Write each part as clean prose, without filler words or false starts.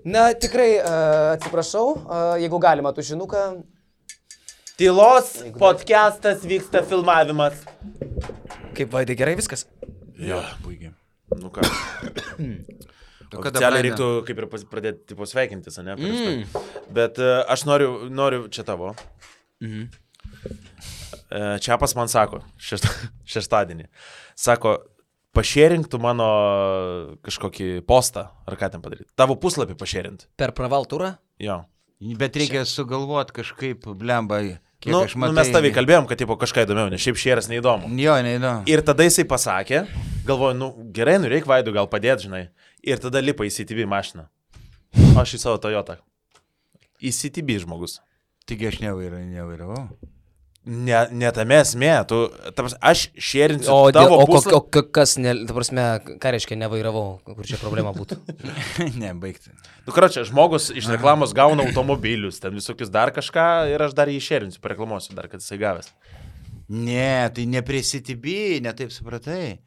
Na, tikrai atsiprašau, jeigu galima tušinuką. Tylos podcastas vyksta filmavimas. Kaip Vaidai, gerai viskas? Jo, puikiai. Nu ką. Oficialiai reiktų kaip ir pradėti tipo sveikintis, ne? Bet aš noriu čia tavo. Čiapas man sako, šeštadienį. Sako, pašėrinktų mano kažkokį postą, ar ką ten padaryti. Tavo puslapį pašėrint. Per pravaltūrą? Jo. Bet reikia sugalvoti kažkaip, blemba, kiek Nu, aš matau. mes tavai kalbėjom, kad tipo, kažką įdomiau, nes šiaip šėras neįdomu. Jo, neįdomu. Ir tada jisai pasakė, galvoju, gerai, reikia Vaidui gal padėti, žinai. Ir tada lipa į CTB mašiną. Aš į savo Toyotą. Į CTB žmogus. Taigi aš nevairavau. Ne tame esmė, aš šėrinsiu tavo puslapį. Kas, ta prasme, ką reiškia nevairavau, kur čia problema būtų? Ne, baigti. Karočią, žmogus iš reklamos gauna automobilius, ten visokius dar kažką ir aš dar jį šėrinsiu, pareklamuosiu dar, kad jisai gavęs. Ne, tai ne prie CTB, ne taip supratai.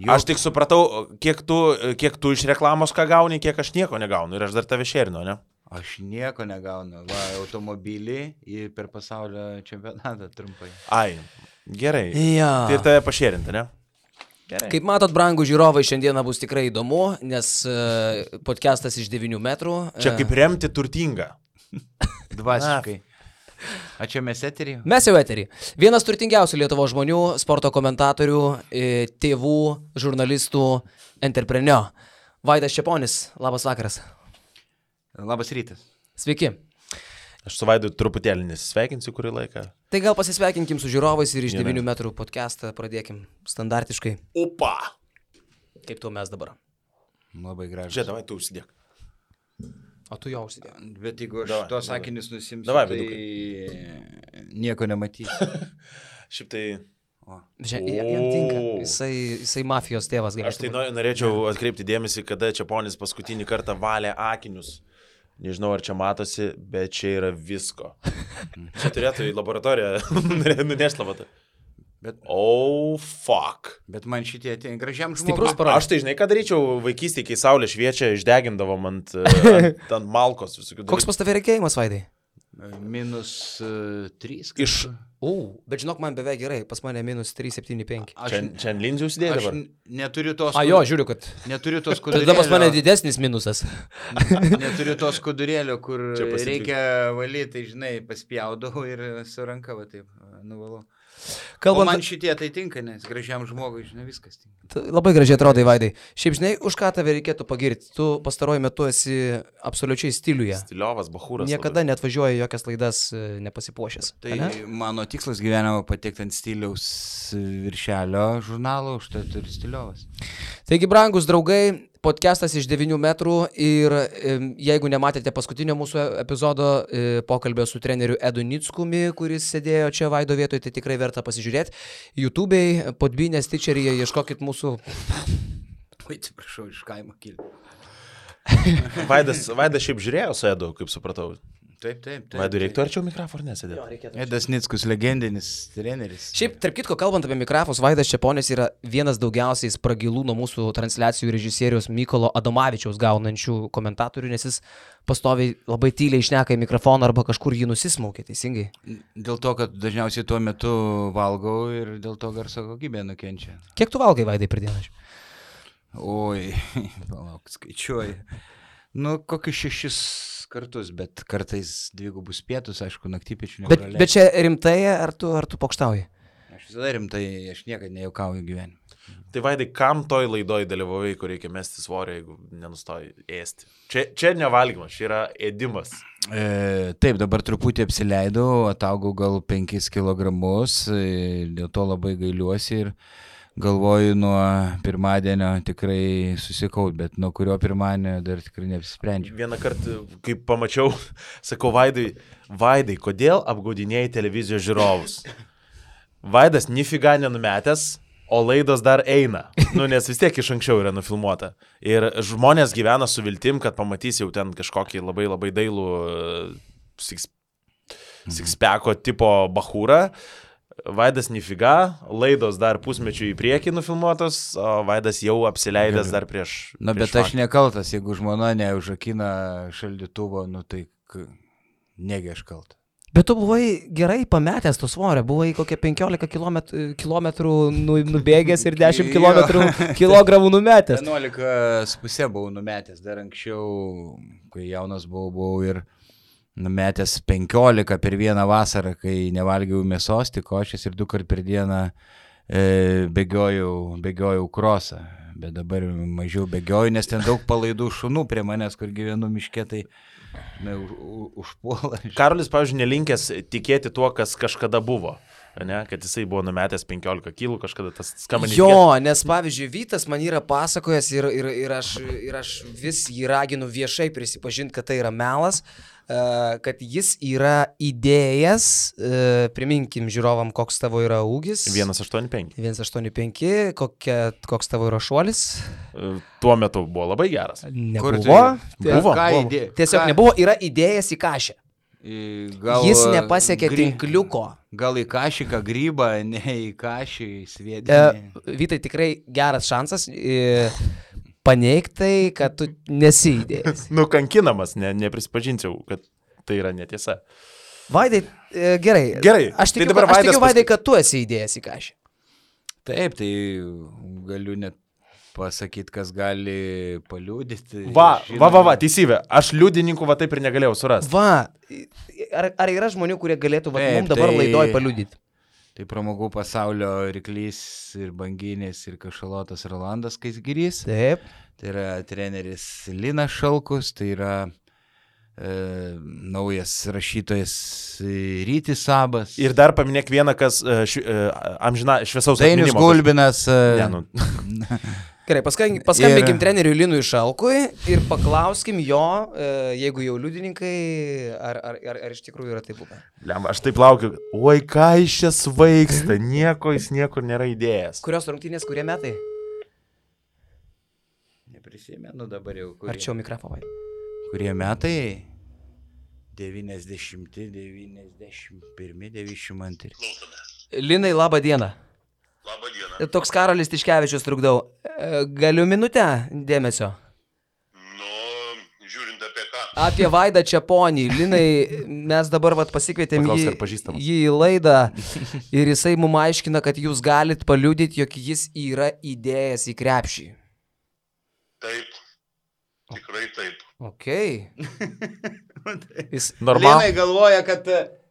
Aš tik supratau, kiek tu iš reklamos ką gauni, kiek aš nieko negaunu ir aš dar tave šėrinu, ne? Aš nieko negaunu. Va, automobilį ir per pasaulio čempionatą trumpai. Ai, gerai. Ja. Tai ir tave pašėrinti, ne? Gerai. Kaip matot, brangų žiūrovai, šiandieną bus tikrai įdomu, nes podcastas iš 9 metrų. Čia kaip remti turtingą. Dvasiškai. A čia mes eterį? Mes jau eterį. Vienas turtingiausių Lietuvos žmonių, sporto komentatorių, tėvų, žurnalistų, entrepreneur. Vaidas Čeponis, labas vakaras. Labas rytas. Sveiki. Aš su Vaidu truputėlį nesisveikinsiu kurį laiką. Tai gal pasisveikinkim su žiūrovais ir iš 9 metrų podcastą pradėkim standartiškai. Opa! Kaip tu mes dabar? Labai gražu. Žiūrėk, davai, tu užsidėk. O tu jau užsidėk. Bet jeigu aš tos sakinius nusimsiu, Davai, tai nieko nematys. Šiaip tai... Jam tinka. Jisai mafijos tėvas. Aš tai norėčiau atkreipti dėmesį, kada Čeponis paskutinį kartą valė akinius. Nežinau, ar čia matosi, bet čia yra visko. Čia turėtų į laboratoriją nunešti labatą. Fuck. Bet man šitie ateina gražiam Stiprus žmogui. parodė. Aš tai žinai, ką daryčiau vaikystėje, kai saulė šviečia, išdegindavom ant malkos visokių dalykų. Koks pas tave reikėjimas, Vaidai? -3. Bet žinok, man beveik gerai, pas mane -375. Čia ant linzių užsidėjai Aš dabar? neturiu tos... Jo, žiūriu, kad... Neturiu tos Tada pas mane skudurėlio. didesnis minusas. Neturiu tos skudurėlio, kur Čia pasitik. reikia valyti, tai žinai, paspjaudau ir su ranka va taip nuvalau. O Kalbant... man šitie tai tinka, nes gražiam žmogui, žinai, viskas tinka. Labai gražiai atrodai, Vaidai. Šiaip žinai, už ką tave reikėtų pagirti? Tu pastaruoju metu esi absoliučiai stiliuje. Stiliovas, bachūras. Niekada net važiuoji jokias laidas nepasipuošęs. Tai mano tikslas gyvenimo patekti ant stiliaus viršelio žurnalo, užtat ir stiliovas. Taigi, brangus draugai, podcastas iš 9 metrų ir jeigu nematėte paskutinio mūsų epizodo pokalbio su treneriu Edu Nickumi, kuris sėdėjo čia Vaido vietoje, tai tikrai verta pasižiūrėti. YouTube'ai, Podbynės, Stitcheryje, ieškokit mūsų... Oi, atsiprašau, iš kaimo kilti. Vaidas šiaip žiūrėjo su Edu, kaip supratau. Taip. Vaidui reiktų arčiau mikrofoną nesėdėti. Edas Nickus, legendinis treneris. Šiaip, tarp kitko, kalbant apie mikrofus, Vaidas Čeponis yra vienas daugiausiai spragilų nuo mūsų transliacijų režisieriaus Mykolo Adomavičiaus gaunančių komentatorių, nes jis pastoviai labai tyliai šneka į mikrofoną arba kažkur jį nusismaukia, teisingai? Dėl to, kad dažniausiai tuo metu valgau ir dėl to garso kokybė nukenčia. Kiek tu valgai, Vaidai, per dieną? Oi, palauk, skaičiuoju. Kokius 6 kartus, bet kartais 2 pietus, aišku, naktypiečių nepraleidžiu. Bet čia rimtai, ar tu pokštauji? Aš visada rimtai, aš niekada nejaukauju gyvenime. Tai Vaidai, kam toj laidoj dalyvavai, kur reikia mesti svorio, jeigu nenustoji ėsti? Čia nevalgymas, čia yra ėdimas. Taip, dabar truputį apsileidau, ataugau gal 5 kilogramus, dėl to labai gailiuosi ir galvoju nuo pirmadienio tikrai susikaut, bet nuo kurio pirmadienio dar tikrai neapsisprendžiu. Vieną kartą, kai pamačiau, sakau Vaidai, kodėl apgaudinėjai televizijos žiūrovus? Vaidas nifiga nenumetęs, o laidos dar eina. Nes vis tiek iš anksčiau yra nufilmuota. Ir žmonės gyvena su viltim, kad pamatys jau ten kažkokį labai labai dailų sixpacko tipo bachūrą. Vaidas nifiga, laidos dar pusmečių į priekį nufilmuotos, o Vaidas jau apsileidęs dar prieš... Na, bet aš nekaltas, jeigu žmona neužrakina šaldytuvo, nu tai negi aš kaltas. Bet tu buvai gerai pametęs to svorio, buvai kokie 15 kilometrų nubėgęs ir 10 kilogramų numetęs. 11,5 buvau numetęs, dar anksčiau, kai jaunas buvau ir numetęs 15 per vieną vasarą, kai nevalgiau mėsos, tik košės ir 2 kart per dieną bėgiojau krosą. Bet dabar mažiau bėgioju, nes ten daug palaidų šunų prie manęs, kur gyvenu miške, tai užpuola. Karolis, pavyzdžiui, nelinkęs tikėti tuo, kas kažkada buvo. Ne, kad jisai buvo numetęs 15 kilų, kažkada tas skamba netikėt. Jo, nes pavyzdžiui, Vytas man yra pasakojęs ir aš vis jį raginu viešai prisipažinti, kad tai yra melas, kad jis yra įdėjęs, priminkim žiūrovam, koks tavo yra ūgis. 1,85. 1,85, koks tavo yra šuolis. Tuo metu buvo labai geras. Nebuvo. Buvo. Tiesiog nebuvo, yra įdėjęs į kašę. Jis nepasiekė tinkliuko. Gal į kašiką grybą, ne į kašį, į sviedinį. Vytai, tikrai geras šansas paneigtai, kad tu nesi įdėjęs. Nukankinamas, neprisipažinčiau, kad tai yra netiesa. Vaidai, gerai. Aš tikiu, Vaidai, kad tu esi įdėjęs į kašį. Taip, tai galiu net pasakyti, kas gali paliūdyti. Va, teisybė. Aš liudininkų taip ir negalėjau surasti. Ar yra žmonių, kurie galėtų mums dabar laidoj paliūdyti? Tai pramogų pasaulio ryklys ir banginės ir kašalotas Rolandas Skaisgirys. Taip. Tai yra treneris Linas Šalkus, tai yra naujas rašytojas Rytis Sabas. Ir dar paminėk vieną, kas amžina šviesaus atminimo. Dainius Gulbinas. Gerai, paskambinkim treneriui Linui Šalkui ir paklauskim jo, jeigu jau liudininkai, ar iš tikrųjų yra taip buvę. Aš taip laukiu, oi ką iš čia svaigsta, jis niekur nėra įdėjęs. Kurios rungtynės, kurie metai? Neprisimenu dabar jau. Arčiau mikrofoną. Kurie metai? 90, 91, 92. Linai, labą dieną. Labą dieną. Toks Karolis Tiškevičius trukdau. Galiu minutę dėmesio? Žiūrint apie ką. Apie Vaidą Čeponį. Linai, mes dabar pasikvietėm jį į laidą ir jisai mums aiškina, kad jūs galit paliudyti, jog jis yra įdėjęs į krepšį. Taip. Tikrai taip. Okei.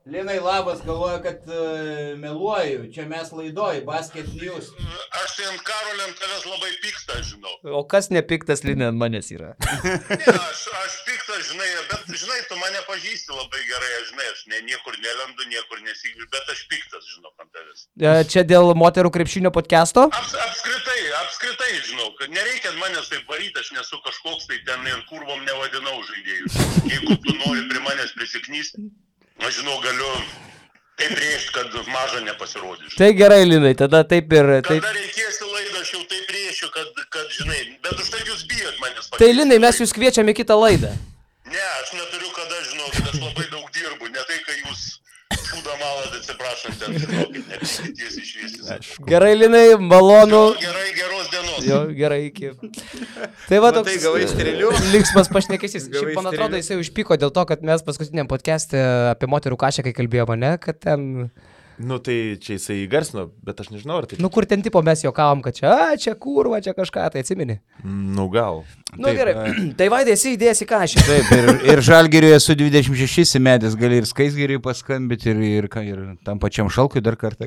Linai labas, galvoja, kad meluoju, čia mes laidoj, Basket News. Aš tai ant Karolio ant tavęs labai piktas, žinau. O kas nepiktas, Linai, ant manęs yra? Ne, aš piktas, žinai, bet žinai, tu mane pažįsti labai gerai, aš niekur nelendu, niekur nesigiu, bet aš piktas, žinau, ant tavęs. Čia dėl moterų krepšinio podcasto? Apskritai, žinau, kad nereikia manęs taip varyti, aš nesu kažkoks tai ten ir kurvom nevadinau žaidėjus. Jeigu tu nori prie manęs prisiknysti, aš žinau, galiu taip rėžti, kad maža nepasirodys. Tai gerai, Linai, tada taip ir... Kada reikėsi laidą, aš jau taip rėšiu, kad žinai, bet už tai jūs bijot manęs pakeisti. Tai Linai, mes jūs kviečiame į kitą laidą. Ne, aš neturiu kada, žinau, kad aš labai daug dirbu, ne tai, kai jūs šūdą malat, atsiprašant, ten, žinokit, nepisities išviesis. Gerai, Linai, malonu. Gerai, geros dienos. Jo, gerai, iki. Tai va toks linksmas pašnekesys. Šiaip, man atrodo, jisai užpyko dėl to, kad mes paskutiniam podcast'e apie moterų kašę, kai kalbėjome, ne, kad ten... Nu tai čia jisai įgarsino, bet aš nežinau, ar tai... Nu kur ten tipo mes juokavom, kad čia kurva, čia kažką, tai atsimeni. Nu gal. Nu taip, gerai, tai Vaidai esi įdėjęs į kašę. Taip, ir Žalgiriui esu 26 įmetęs, gali ir Skaisgiriui paskambyti ir tam pačiam Šalkui dar kartą.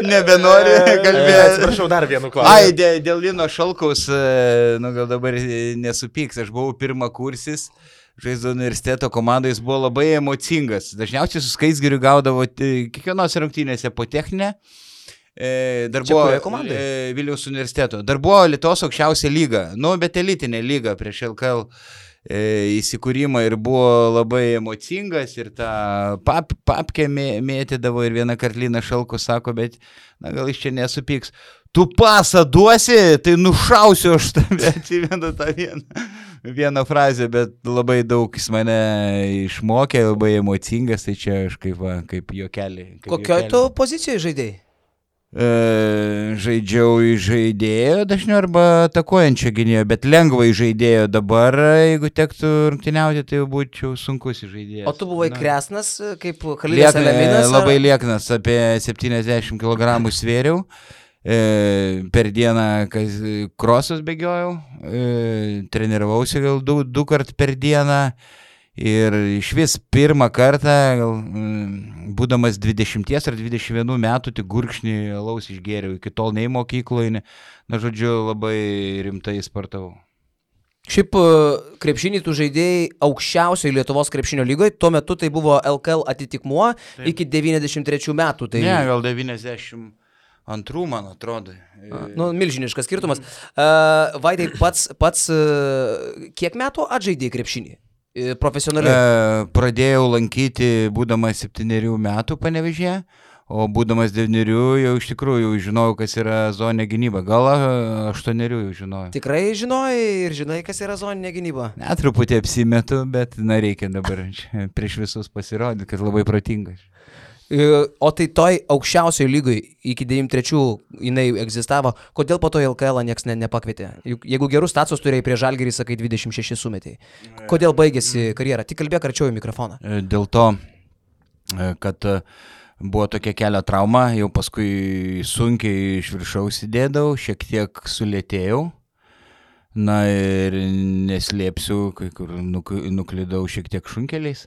Nebenori kalbėti. Atsiprašau, dar vienu klausimu. Dėl Lino Šalkaus, nu gal dabar nesupyks, aš buvau pirmakursis. Žaizdo universiteto komandai jis buvo labai emocingas. Dažniausiai su Skaisgiriu gaudavo kiekvienos rungtynėse po techninę. Dar buvo Vilniaus universiteto. Dar buvo Lietuvos aukščiausia lyga. Nu, bet elitinė lyga prieš LKL įsikūrimą ir buvo labai emocingas ir tą papkę mėtydavo ir vieną kartą Linas Šalkus sako, bet na, gal iš čia nesupyks. Tu pasą duosi, tai nušausiu aš tave, atsimenu tą vieną. vieną frazę, bet labai daug jis mane išmokė, labai emocingas, tai čia aš kaip juokelį. Kokioje tu pozicijoje žaidėjai? Žaidžiau į žaidėjo dažniau arba atakuojančio gynėjo, bet lengvai žaidėjo dabar, jeigu tektų rungtyniauti, tai būčiau sunkus žaidėjas. O tu buvai kresnas, kaip Khalildas Eleminas? Labai lieknas, apie 70 kg svėriau. Per dieną krosus bėgiojau, treniravausi gal du kart per dieną ir iš vis pirmą kartą, būdamas 20 ar 21 metų, tik gurkšnį alaus išgėriau, iki tol nei mokykloje, žodžiu, labai rimtai sportavau. Šiaip krepšinį tu žaidėjai aukščiausioje Lietuvos krepšinio lygoje, tuo metu tai buvo LKL atitikmuo iki 93 metų. Tai... Ne, gal 92, man atrodo. Milžiniškas skirtumas. Vaidai, pats kiek metų atžaidėjai krepšinį? Profesionaliai? Pradėjau lankyti būdamas 7 metų Panevėžyje, o būdamas 9 jau iš tikrųjų žinojau, kas yra zoninė gynyba. Gal 8 jau žinojau. Tikrai žinojai ir žinai, kas yra zoninė gynyba? Ne, truputį apsimetu, bet reikia dabar prieš visus pasirodyti, kad labai protingas. O tai toj aukščiausioje lygoje iki 93 jinai egzistavo, kodėl po to LKL nieks nepakvietė? Juk jeigu gerus statusus turėjai prie Žalgirį, sakai 26 sumetėjai. Kodėl baigėsi karjera? Tik kalbėk arčiau į mikrofoną. Dėl to, kad buvo tokia kelio trauma, jau paskui sunkiai iš viršaus įdėdavau, šiek tiek sulėtėjau. Na ir neslėpsiu, kai kur nuklydau šiek tiek šunkeliais.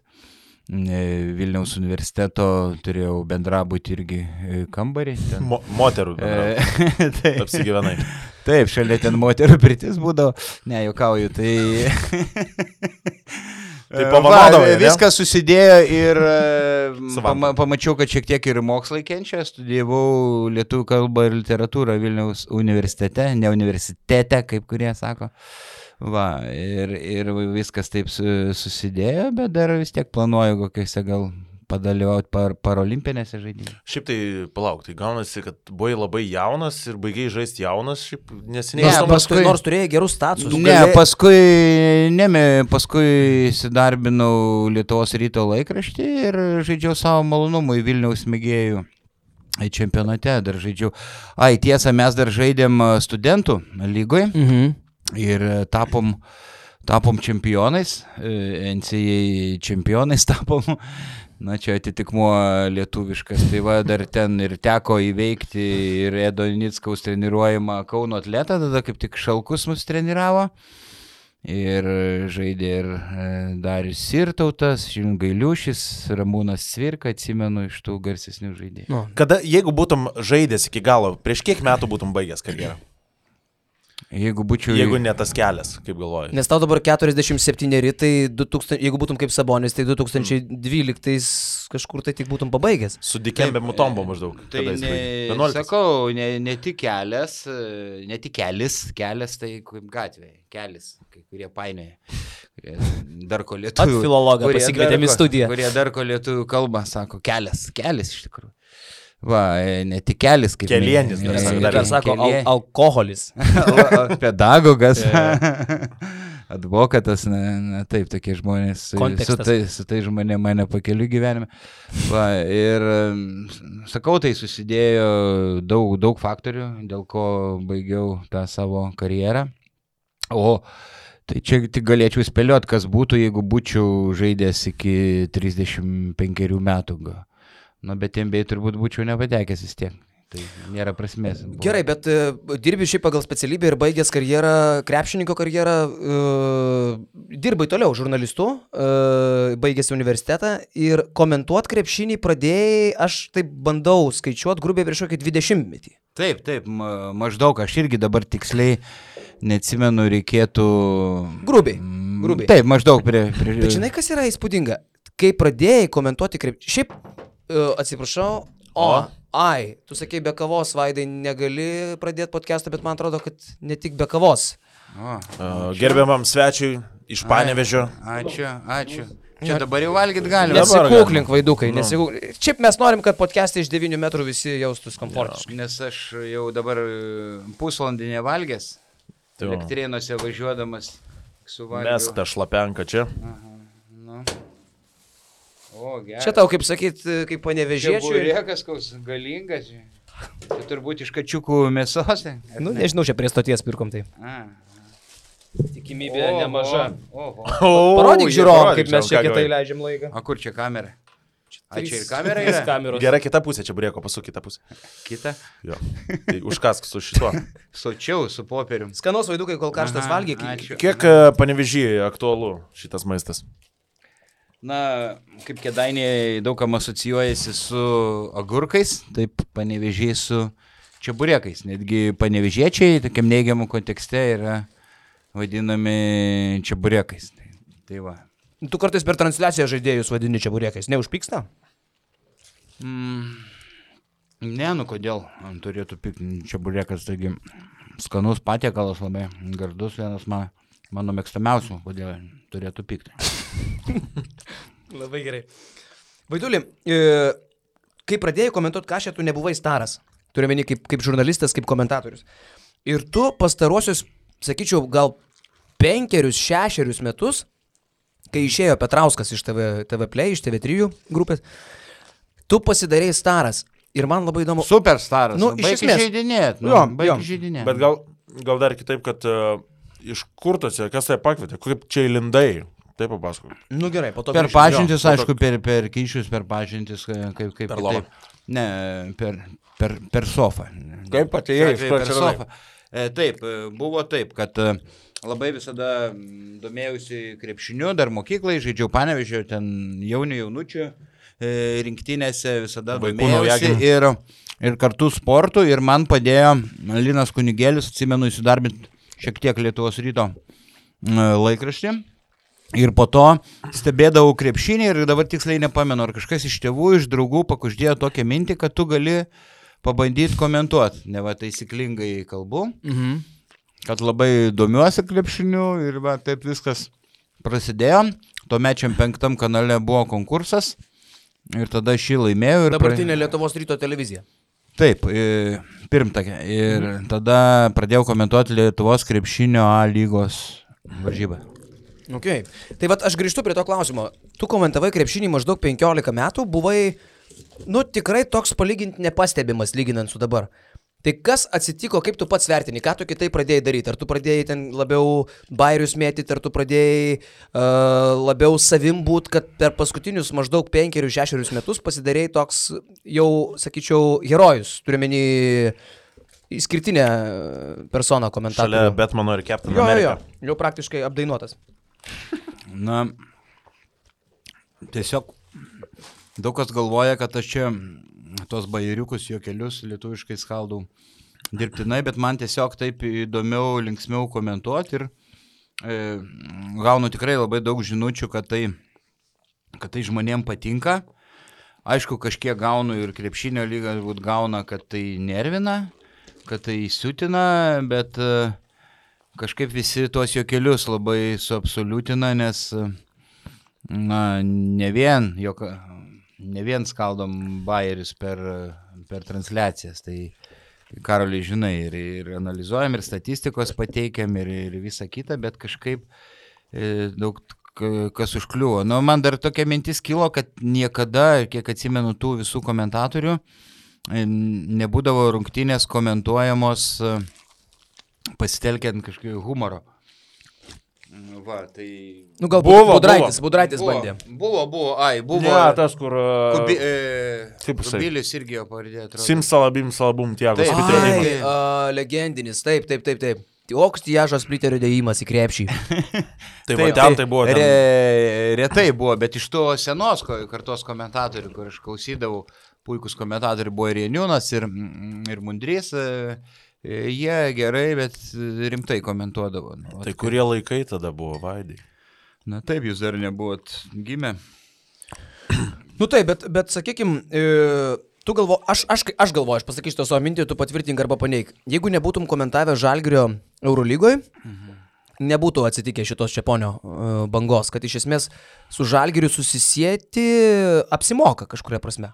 Vilniaus universiteto turėjau bendrabutį irgi kambarį. Moterų bendrabutį. Apsigyvenai. Taip, šalia ten moterų pirtis būdavo. Ne, juokauju, tai... Tai pavadovai, viskas susidėjo ir pamačiau, kad šiek tiek ir mokslai kenčia. Studijavau lietuvių kalbą ir literatūrą Vilniaus universitete, ne universitete, kaip kurie sako. Va, ir viskas taip susidėjo, bet dar vis tiek planuoju kokiuose gal padalyvauti parolimpinėse žaidynėse. Šiaip tai palauk, tai gaunasi, kad buvai labai jaunas ir baigiai žaisti jaunas, šiaip neseniai. Nors turėjai gerus statusus. Paskui įsidarbinau Lietuvos ryto laikraštį ir žaidžiau savo malonumui Vilniaus mėgėjų čempionate, dar žaidžiau. Tiesa, mes dar žaidėm studentų lygoje. Ir tapom čempionais, NCAA čempionais tapom, na čia atitikmuo lietuviškas, tai va dar ten ir teko įveikti ir Edo Nickaus treniruojamą Kauno atletą, tada kaip tik Šalkus mus treniravo ir žaidė ir Darius Sirtautas, Gailiušis, Ramūnas Cvirka, atsimenu iš tų garsesnių žaidėjų. Kada, jeigu būtum žaidęs iki galo, prieš kiek metų būtum baigęs karjerą? Jeigu ne tas kelias, kaip galvoji. Nes tau dabar 47, tai 2000, jeigu būtum kaip Sabonis, tai 2012 kažkur tai tik būtum pabaigęs. Su Dikembe Mutombo maždaug. Tai sakau, ne tik kelias, kelias tai kaip gatvė, kelias, kai kurie painioja. Dar ko lietuvių. At filologą pasikvietėm į studiją. Kurie dar ko lietuvių kalbą sako, kelias iš tikrųjų. Va, ne tik kelis, kaip kelienis, dar sako, alkoholis. Pedagogas, advokatas, taip, tokie žmonės, su tai žmonė mane pakeliu gyvenime. Va, ir sakau, tai susidėjo daug faktorių, dėl ko baigiau tą savo karjerą. O tai čia tik galėčiau spėlioti, kas būtų, jeigu būčiau žaidęs iki 35 metų. Bet NBA turbūt būčiau nepatekęs vis tiek. Tai nėra prasmės. Gerai, bet dirbi šiaip pagal specialybę ir baigęs karjerą, krepšininko karjerą, dirbai toliau žurnalistu, baigęs universitetą ir komentuoti krepšinį pradėjai, aš taip bandau skaičiuoti grubiai prieš kokį 20-metį. Taip, maždaug, aš irgi dabar tiksliai neatsimenu, reikėtų... Grubiai. Taip, maždaug prie... Bet žinai, kas yra įspūdinga? Kai pradėjai komentuoti krepšinį, šiaip... Atsiprašau, tu sakei be kavos, Vaidai, negali pradėti podcastą, bet man atrodo, kad ne tik be kavos. Gerbiamam svečiui iš Panevėžio. Ačiū. Čia dabar jau valgyti galime. Nesikūklink, Vaidukai, nesikūklink. Šiaip mes norim, kad podcast'e iš 9 metrų visi jaustus komfortiškai. Nes aš jau dabar pusvalandį nevalgęs, Elektrėnuose važiuodamas suvalgiau. Mesk tą šlapenką čia. Aha, nu. O, gerai. Čia tau, kaip sakyt, kaip Panevėžiečiui. Burėkas koks galingas. Čia turbūt iš kačiukų mėsos. Nu, nežinau, čia prie stoties pirkom tai. A. Tikimybė nemaža. Oho. Parodyk žiūrovom, kaip mes čia ką kitai gavai. leidžiam laiką. O kur čia kamera? A čia ir Kamera kamera yra? kameros. Gerai, kita pusė, čia burėko, pasuk kitą pusę. Kita. Jo. Tai užkask su šituo. Sočiau su popierium. Skanos vaidukai, kol karštas Aha, valgyk. ačiū. Kiek Panevėžyje aktualu šitas maistas? Na, kaip Kėdainiai daug kam asocijuojasi su agurkais, taip Panevėžiai su čeburekais. Netgi panevėžiečiai, tokiam neigiamam kontekste, yra vadinami čeburekais. Tai va. Tu kartais per transliaciją žaidėjus vadini čeburekais. Neužpyksta? Ne, nu kodėl? Man turėtų pikti čeburekas, taigi skanus patiekalas labai, gardus vienas mano mėgstamiausių, kodėl turėtų pikti. Labai gerai. Vaiduli, kai pradėjai komentuoti kažką, tu nebuvai staras. Turiu meni kaip žurnalistas, kaip komentatorius. Ir tu pastarosius, sakyčiau, gal 5-6 metus, kai išėjo Petrauskas iš TV Play, iš TV3 grupės, tu pasidarėjai staras. Ir man labai įdomu. Superstaras. Nu, iš baigi esmės. žaidinėt. Jo, Baigi jo. žaidinėt. Bet gal dar kitaip, kad iš kur tas, kas tai pakvietė, kaip čia įlindai, taip papasakok. Nu gerai, po to. Per grįšim. pažintis, jo, aišku, per kyšius, per pažintis, kaip Per lovą. kitaip. Ne, per sofą. Kaip atėjai, iš kur per atsiradai? sofą. Taip, buvo taip, kad labai visada domėjausi krepšiniu, dar mokyklai, žaidžiau Panevėžio, ten jaunučių rinktinėse visada Vaikų domėjausi ir kartu sportu ir man padėjo Linas Kunigėlis, atsimenu, įsidarbinti šiek tiek Lietuvos ryto laikraštį. Ir po to stebėdavau krepšinį ir dabar tiksliai nepamenu, ar kažkas iš tėvų, iš draugų pakuždėjo tokią mintį, kad tu gali pabandyti komentuoti. Ne va taisyklingai kalbu, kad labai domiuosi krepšiniu ir va taip viskas prasidėjo. Tuomečiam 5 kanale buvo konkursas ir tada aš jį laimėjau. Dabartinė Lietuvos ryto televizija. Taip, pirmtakė. Ir tada pradėjau komentuoti Lietuvos krepšinio A lygos varžybą. Okay. Tai vat aš grįžtu prie to klausimo. Tu komentavai krepšinį maždaug 15 metų, buvai, nu, tikrai toks palyginti nepastebimas lyginant su dabar. Tai kas atsitiko, kaip tu pats vertini, ką tu kitai pradėjai daryti? Ar tu pradėjai ten labiau bairius mėtyti, ar tu pradėjai labiau savim būt, kad per paskutinius maždaug 5-6 metus pasidarėjai toks jau, sakyčiau, herojus, turiuomenį išskirtinę personą komentatorių. Šalia Batmano ir Captain America. Jau praktiškai apdainuotas. Na, tiesiog daug kas galvoja, kad aš čia tos bairiukus juokelius lietuviškai skaldau dirbtinai, bet man tiesiog taip įdomiau, linksmiau komentuoti ir gaunu tikrai labai daug žinučių, kad tai žmonėm patinka. Aišku, kažkiek gaunu ir krepšinio lyga gauna, kad tai nervina, kad tai siutina, bet kažkaip visi tuos juokelius labai suabsoliutina, nes na, ne vien skaldom bairius per transliacijas, tai Karoliai žinai ir analizuojam, ir statistikos pateikiam, ir visą kitą, bet kažkaip daug kas užkliuvo. Nu, man dar tokia mintis kilo, kad niekada, kiek atsimenu tų visų komentatorių, nebūdavo rungtynės komentuojamos pasitelkiant kažkokio humoro. Va, tai... Nu, galbūt Budraitis bandė. Buvo. Ne, tas, kur... Kubilius irgi jo pavardė atrodo. Simsalabim Tiagos. Taip. Legendinis, taip. Oks Tiažos Spliterio dėjimas į krepšį. Tai va, ten tai buvo. Retai buvo, bet iš to senos kartos komentatorių, kur aš klausydavau, puikus komentatoriai buvo ir Janiūnas, ir Mundrys, jie gerai, bet rimtai komentuodavo. Tai kurie laikai tada buvo, Vaidai? Na taip, jūs dar nebuvot gimę. Nu taip, bet sakykim, tu aš galvoju, aš pasakysiu to savo mintį, tu patvirtink arba paneik. Jeigu nebūtum komentavę Žalgirio Eurolygoje, nebūtų atsitikę šitos Čeponio bangos, kad iš esmės su Žalgiriu susisieti apsimoka kažkuria prasme.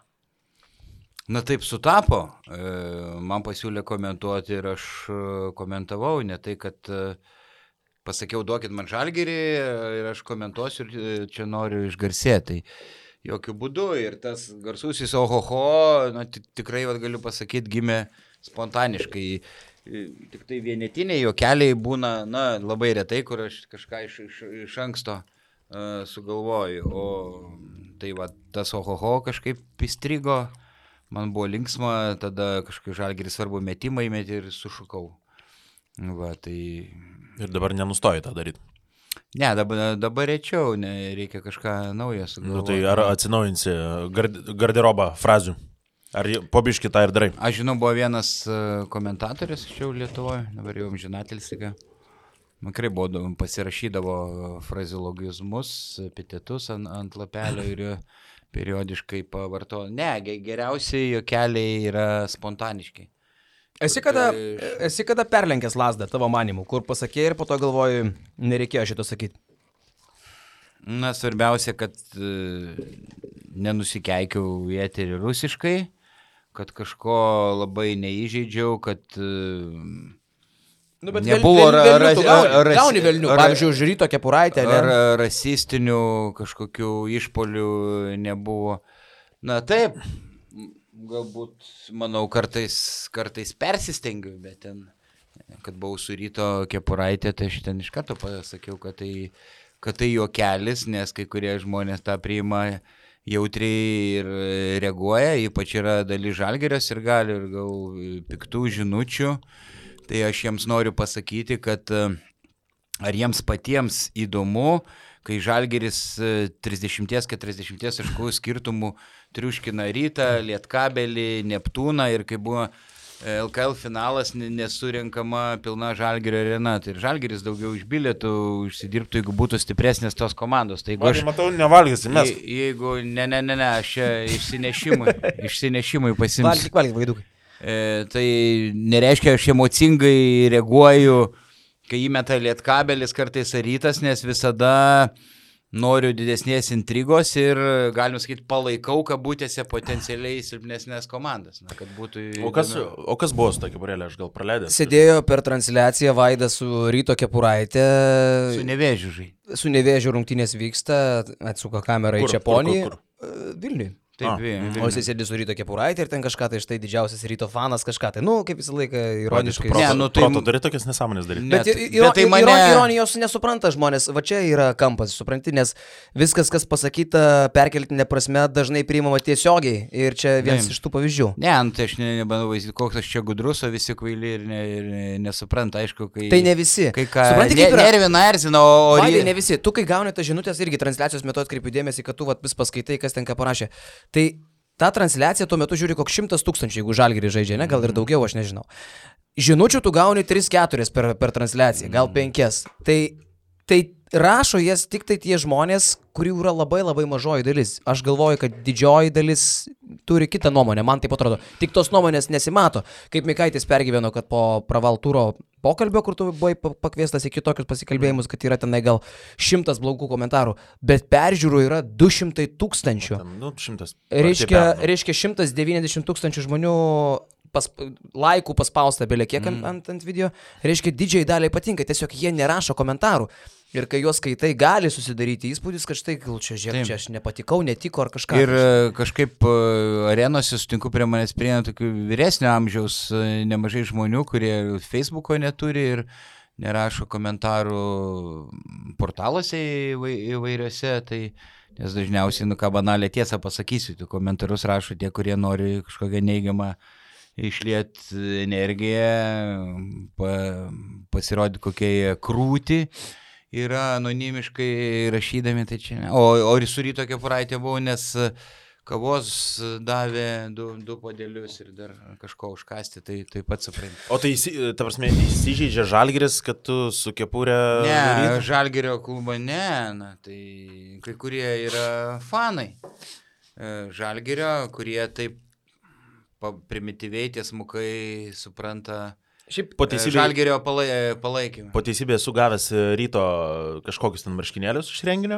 Na taip sutapo, man pasiūlė komentuoti ir aš komentavau, ne tai, kad pasakiau, duokit man Žalgirį ir aš komentuosiu ir čia noriu išgarsėti. Tai jokių būdų ir tas garsusis ohoho, tikrai galiu pasakyti, gimė spontaniškai. Tik tai vienetiniai juokeliai būna, labai retai, kur aš kažką iš anksto sugalvoju. O tai tas ohoho kažkaip įstrigo, man buvo linksma, tada kažkaip Žalgiris svarbu metimą įmetį ir sušukau. Tai... Ir dabar nenustoji tą daryti. Ne, dabar rečiau, reikia kažką naujo sugalvoti. Tai ar atsinaujinsi garderobą frazių? Ar pobiški tą ir darai? Aš žinau, buvo vienas komentatorius čia Lietuvoje, dabar jau amžinatelis. Makrai pasirašydavo fraziologizmus, epitetus ant lapelio ir periodiškai pavarto. Ne, geriausiai juokeliai yra spontaniški. Esi kada perlenkęs lazdą tavo manimu, kur pasakė ir po to galvoju, nereikėjo šito sakyti? Svarbiausia, kad nenusikeikiau į eterį rusiškai, kad kažko labai neįžeidžiau, kad nebuvo gauni velnių, pavyzdžiui, už Ryto Kepuraitę. Ar rasistinių kažkokių išpolių nebuvo. Taip, galbūt, manau, kartais persistengiu, bet ten, kad buvau su Ryto Kepuraitė, tai aš ten iš karto pasakiau, kad tai juokelis, nes kai kurie žmonės tą priima jautriai ir reaguoja, ypač yra dalis Žalgirio ir gali ir gal piktų žinučių. Tai aš jiems noriu pasakyti, kad ar jiems patiems įdomu, kai Žalgiris 30-40 taškų skirtumų triuškina Rytą, Lietkabelį, Neptūną ir kai buvo LKL finalas nesurinkama pilna Žalgirio arena. Tai ir Žalgiris daugiau iš bilietų užsidirbtų, jeigu būtų stipresnės tos komandos. Tai jeigu matau, nevalgysi, mes. Jeigu, aš išsinešimui pasimsiu. Valgyk, vaidukai. Tai nereiškia, aš emocingai reaguoju, kai įmeta Lietkabelis kartais Rytas, nes visada noriu didesnės intrigos ir, galima sakyti, palaikau kabutėse potencialiai silpnesnės komandas. Kad būtų... O kas buvo su ta Kepurėlė, aš gal praleidęs? Sėdėjo per transliaciją Vaidas su Ryto Kepuraitė. Su Nevėžiu žai. Su Nevėžiu rungtynės vyksta, atsuka kamerą į Čeponį. Vilniui. Taip, o jis sėdi su Ryto Kepuraitė ir ten kažką, tai štai didžiausias Ryto fanas kažką, tai, kaip visą laiką ironiškai. Proto turi tokias nesąmonės daryti. Bet tai ironijos nesupranta žmonės, va čia yra kampas, supranti, nes viskas, kas pasakyta perkeltinė prasme, dažnai priimama tiesiogiai ir čia vienas iš tų pavyzdžių. Tai aš nebandau vaizdyti, koks aš čia gudrus, o visi kvaili ir nesupranta, aišku, kai... Tai ne visi. Supranti, kaip nervina, erzina, o... Vaidai, ne visi. Tu, kai gauni tas žinutės, irgi transliacijos metu atkreipiu dėmesį, kad tu vis paskaitai, kas ten ką parašė. Tai tą transliaciją tuo metu žiūri koks 100 000, jeigu Žalgiris žaidžia, gal ir daugiau, aš nežinau. Žinučių tu gauni 3-4 per transliaciją, gal 5. Tai rašo jas tik tai tie žmonės, kurių yra labai labai mažoji dalis. Aš galvoju, kad didžioji dalis turi kitą nuomonę, man taip atrodo. Tik tos nuomonės nesimato. Kaip Mikaitis pergyveno, kad po pravaltūro pokalbio, kur tu buvai pakviestas į kitokius pasikalbėjimus, kad yra tenai gal 100 blogų komentarų, bet peržiūrų yra 200 000. Reiškia 190 000 žmonių laikų paspausta belė kiek ant video. Reiškia, didžiai daliai patinka, tiesiog jie nerašo komentarų. Ir kai juos skaitai, gali susidaryti įspūdis, kad štai, gal čia aš nepatikau, netiko ar kažką. Ir kažkaip arenose sutinku prie manęs prieina tokių vyresnio amžiaus nemažai žmonių, kurie Facebooko neturi ir nerašo komentarų portaluose įvairiose. Tai, nes dažniausiai, ką banalią tiesą pasakysiu, tų komentarus rašo tie, kurie nori kažkokią neigiamą išliet energiją, pasirodyti kokie krūti. Yra anonimiškai rašydami, tai čia ne. O ir su Ryto Kepuraitė buvau, nes kavos davė 2 puodelius ir dar kažko užkasti, tai pats supranti. O tai, ta prasme, įsižeidžia Žalgiris, kad tu su Kepurė... Ne, Žalgirio klubo ne, tai kai kurie yra fanai Žalgirio, kurie taip primityviai tiesmukai supranta... Šiaip Žalgirio palaikymą. Po teisybė esu gavęs Ryto kažkokius ten marškinėlius iš renginio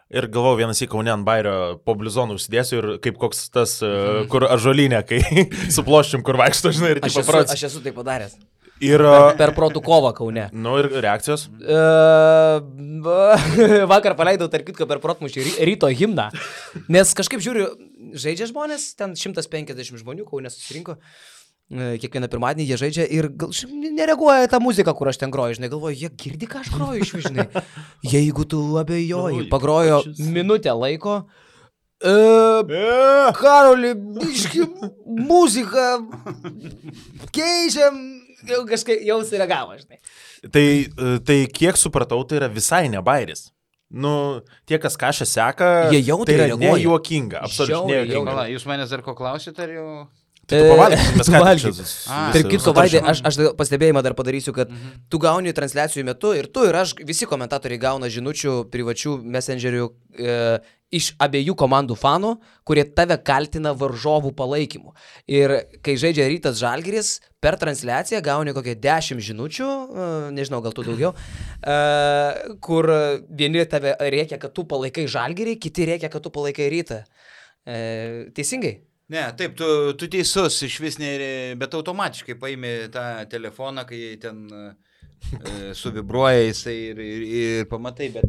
ir galvojau vienas į Kaune ant bairio po blizonų užsidėsiu ir kaip koks tas, kur ažuolinė, kai su ploščium, kur vaikšto, žinai, ir taip paprats. Aš esu tai padaręs. Ir... Per protų kovą Kaune. Nu ir reakcijos? Vakar paleidau, tarp kitko, per protmušį ryto himną. Nes kažkaip žiūriu, žaidžia žmonės, ten 150 žmonių Kaune susirinko. Kiekvieną pirmadienį jie žaidžia ir nereaguoja tą muziką, kur aš ten groju, žinai, galvoju, jie girdi, ką aš groju iš žinai. Jeigu tu abejoji, pagrojo minutę laiko. Karoli, biški, muziką keičiam, kažkaip jau sureagavo, žinai. Tai kiek supratau, tai yra visai ne bairis. Nu, tie, kas kažką seka, jie jau tai yra reaguoja. nejuokinga, absoliučiai nejuokinga. Pala, jūs manęs dar ko klausite, ar jau... Tai tu pavalgyk, mes ką Valgyk. Tarp kitko, Vaidai, sutaršim. aš pastebėjimą dar padarysiu, kad tu gauni transliacijų metu ir tu ir aš, visi komentatoriai gauna žinučių privačių messengerių iš abiejų komandų fanų, kurie tave kaltina varžovų palaikymu. Ir kai žaidžia Rytas Žalgiris, per transliaciją gauni kokią 10 žinučių, nežinau, gal tu daugiau, kur vieni tave rėkia, kad tu palaikai Žalgirį, kiti rėkia, kad tu palaikai Rytą. Teisingai? Ne, taip, tu teisus, iš vis, bet automatiškai paimi tą telefoną, kai ten suvibruoja jisai ir pamatai, bet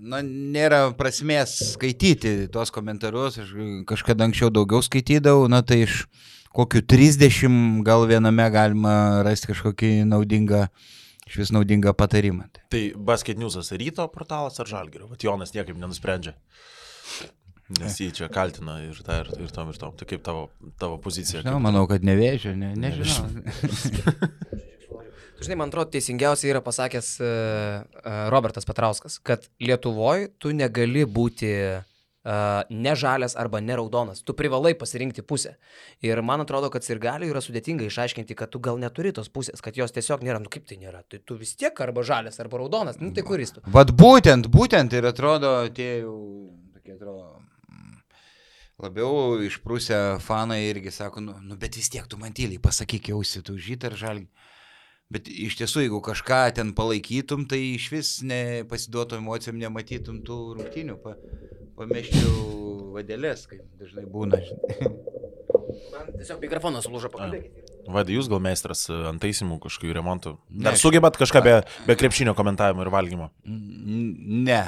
na, nėra prasmės skaityti tuos komentarus, aš kažkada anksčiau daugiau skaitydavau, na tai iš kokių 30 gal viename galima rasti kažkokį naudingą patarimą. Tai Basket News'as Ryto portalas ar Žalgirio? Vat Jonas niekaip nenusprendžia. Nes jį čia kaltina ir tom. Tai kaip tavo pozicija? Žinau, manau, kad nevėžio, nežinau. Žinai, man atrodo, teisingiausiai yra pasakęs Robertas Petrauskas, kad Lietuvoje tu negali būti ne žalias arba ne raudonas. Tu privalai pasirinkti pusę. Ir man atrodo, kad sirgaliui yra sudėtinga išaiškinti, kad tu gal neturi tos pusės, kad jos tiesiog nėra. Nu kaip tai nėra? Tai tu vis tiek arba žalias arba raudonas. Nu tai kuris tu? Vat būtent ir atrodo, tie jau tokie atrodo... Labiau išprūsę fanai irgi sako, nu bet vis tiek tu man tyliai pasakyk jausi, tu žyt ar žalgi. Bet iš tiesų, jeigu kažką ten palaikytum, tai iš vis nepasiduotų emocijom, nematytum tų rungtynių, pameščiau vadelės, kaip dažnai būna. Man tiesiog mikrofonas sulūžo, pakalbėkite. Vaidai, jūs gal meistras ant taisimų kažkokių remontų? Dar sugebat kažką be krepšinio komentavimo ir valgymo? Ne,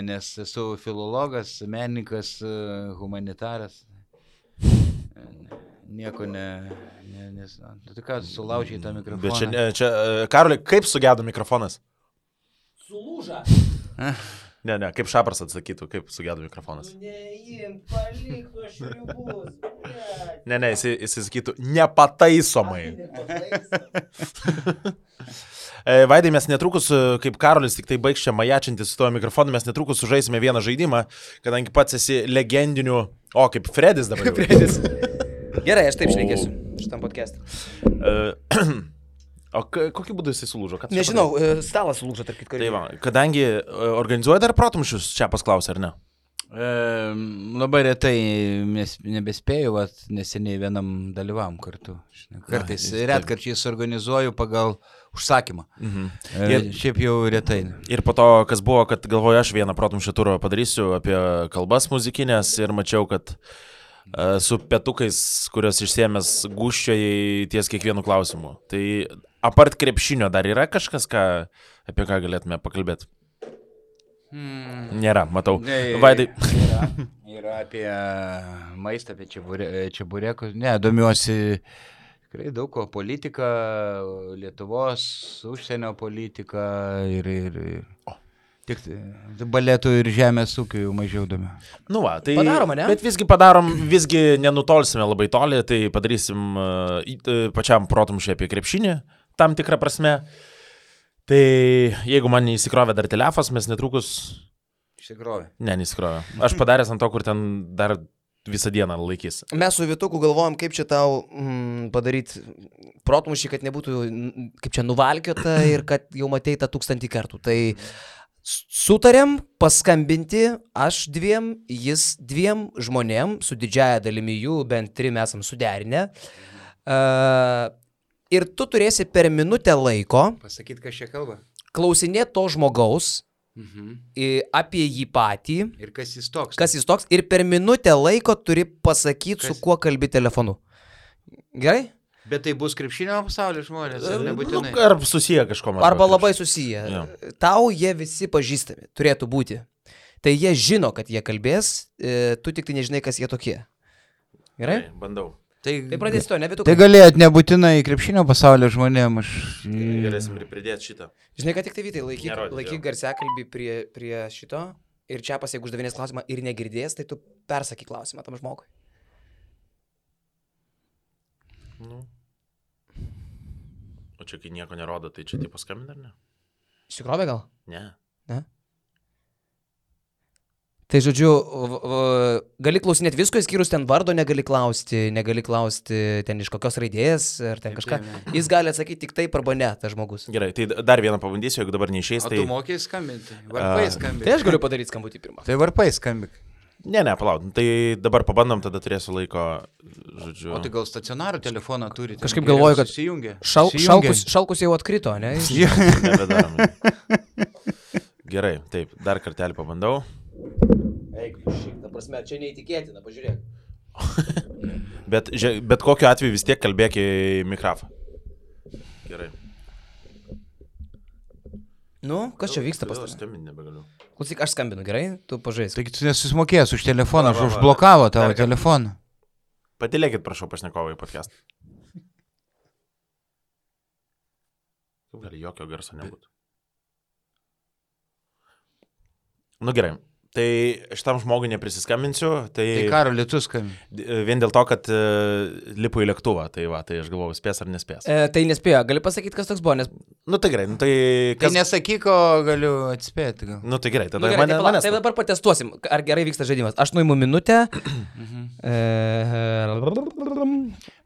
nes esu filologas, menininkas, humanitaras. Nieko tai ką, sulaužiai tą mikrofoną. Bet čia Karoli, kaip sugedo mikrofonas? Sulūža. Ne, kaip Šapras atsakytų, kaip sugedo mikrofonas. Neimk, palik tuos šriubus. Ne, jis sakytų nepataisomai. Vaidai, mes netrukus, kaip Karolis tik tai baigs čia majačintis su tuo mikrofonu, mes netrukus sužaisime vieną žaidimą, kadangi pats esi legendinių, kaip Fredis dabar. Fredis. Gerai, aš taip šnekėsiu šitam podcast'e. O kokiu būdu jisai sulūžo? Nežinau, stalas sulūžo, tarp kitko. Tai va, kadangi organizuoja dar protumšius, čia pasklausė, ar ne? Labai retai nebespėjau, neseniai vienam dalyvavom kartu. Kartais retkarčiais organizuoju pagal užsakymą. Šiaip jau retai. Ir po to, kas buvo, kad galvoju, aš vieną protumšio turą padarysiu apie kalbas muzikinės ir mačiau, kad su petukais, kurios išsiėmęs gūščiai ties kiekvienu klausimu. Tai apart krepšinio dar yra kažkas, apie ką galėtume pakalbėti? Nėra, matau. Vaidai. Yra apie maistą, apie čeburekus. Ne, domiuosi tikrai daug ko. Politika, Lietuvos, užsienio politika ir tik baletų ir žemės ūkių jau mažiau domiu. Nu va, tai padaroma, ne? Bet visgi nenutolsime labai toli, tai padarysim pačiam protumšiui apie krepšinį, tam tikrą prasme. Tai jeigu man neįsikrovė dar telefas, mes netrukus... Įsikrovė? Ne, neįsikrovė. Aš padaręs ant to, kur ten dar visą dieną laikys. Mes su Vituku galvojom, kaip čia tau padaryti protmušį, kad nebūtų kaip čia nuvalkiota ir kad jau matei tą 1000 kartų. Tai sutarėm paskambinti aš 2, jis 2 žmonėm, su didžiaja dalimi jų, bent 3 esam suderinę. Ir tu turėsi per minutę laiko pasakyti, kas čia kalba. Klausinėti to žmogaus apie jį patį. Ir kas jis toks. Kas jis toks. Ir per minutę laiko turi pasakyti, su kuo kalbi telefonu. Gerai? Bet tai bus krepšinio pasaulio žmonės, ar nebūtinai? Nu, ar susiję kažkom. Arba labai susiję. Jo. Tau jie visi pažįstami, turėtų būti. Tai jie žino, kad jie kalbės, tu tik tai nežinai, kas jie tokie. Gerai? Bandau. Tai pradėsi to, nevitu. Tai galėjot nebūtinai krepšinio pasaulio žmonėm, aš... Galėsim ir pridėti šitą. Žinai, kad tik tai Vytai, Nerodyk, laikyk garsiakalbį prie šito ir čia jeigu uždavinės klausimą ir negirdės, tai tu persakyk klausimą tam žmogui. Nu. O čia kai nieko nerodo, tai čia tipo skambina, ar ne? Išsikrovė gal? Ne. Tai žodžiu, gali klausinėti visko, išskyrus ten vardo negali klausti ten iš kokios raidės ar ten kažką. Jis gali atsakyti tik taip arba ne, tas žmogus. Gerai, tai dar vieną pabandysiu, jeigu dabar neišeis, tai... O tu mokai skambinti? Varpai skambinti. Tai aš galiu padaryti skambutį pirmą. Tai varpai skambik. Ne, palauk, tai dabar pabandom, tada turėsiu laiko, žodžiu... O tai gal stacionarų telefoną turite? Kažkaip galvoju, kad susijungia. Šalkus jau atkrito, ne? Nebedarom. Gerai, taip, dar kartelį pabandau. Eik, ta prasme, čia neįtikėtina, pažiūrėk. bet kokiu atveju vis tiek kalbėk į mikrofą. Gerai. Nu, kas čia vyksta pas tave? Skambinti nebegaliu. Klausyk, aš skambinu, gerai? Tu pažaisk. Taigi tu nesusimokėjęs už telefoną, aš užblokavo tavo telefoną. Patilėkit, prašau, pašnekovai podcastą. Kaip gali jokio garso nebūtų? Nu gerai. Tai šitam žmogui neprisiskambinsiu, Tai Karoli, tu skambini. vien dėl to, kad lipu į lėktuvą, tai va, tai aš galvoju, spės ar nespės. Tai nespėjo, gali pasakyti, kas toks buvo, nes... Nu tai gerai, nu tai... Tai nesakyk, o galiu atspėti gal. Nu tai gerai, tada gerai, mane... tai dabar patestuosim, ar gerai vyksta žaidimas. Aš nuimu minutę.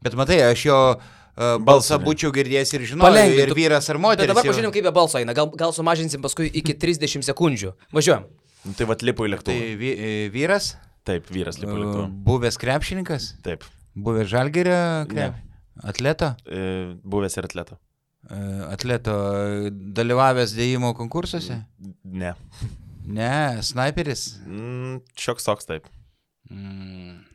Bet matai, aš jo balsą būčiau girdėjęs ir žinojau, ir vyras ar moteris. Bet dabar pažiūrėjom, kaip be balso eina. Gal sumažinsim paskui iki 30 sekundžių. Važiuojam. Nu, tai va, lipu į lėktuvą. Tai vyras? Taip, vyras lipu į lėktuvą. Buvęs krepšininkas? Taip. Buvęs Žalgirio atleto? Buvęs ir atleto. Atleto dalyvavęs dėjimo konkursuose? Ne. Ne, snaiperis? Šioks toks, taip.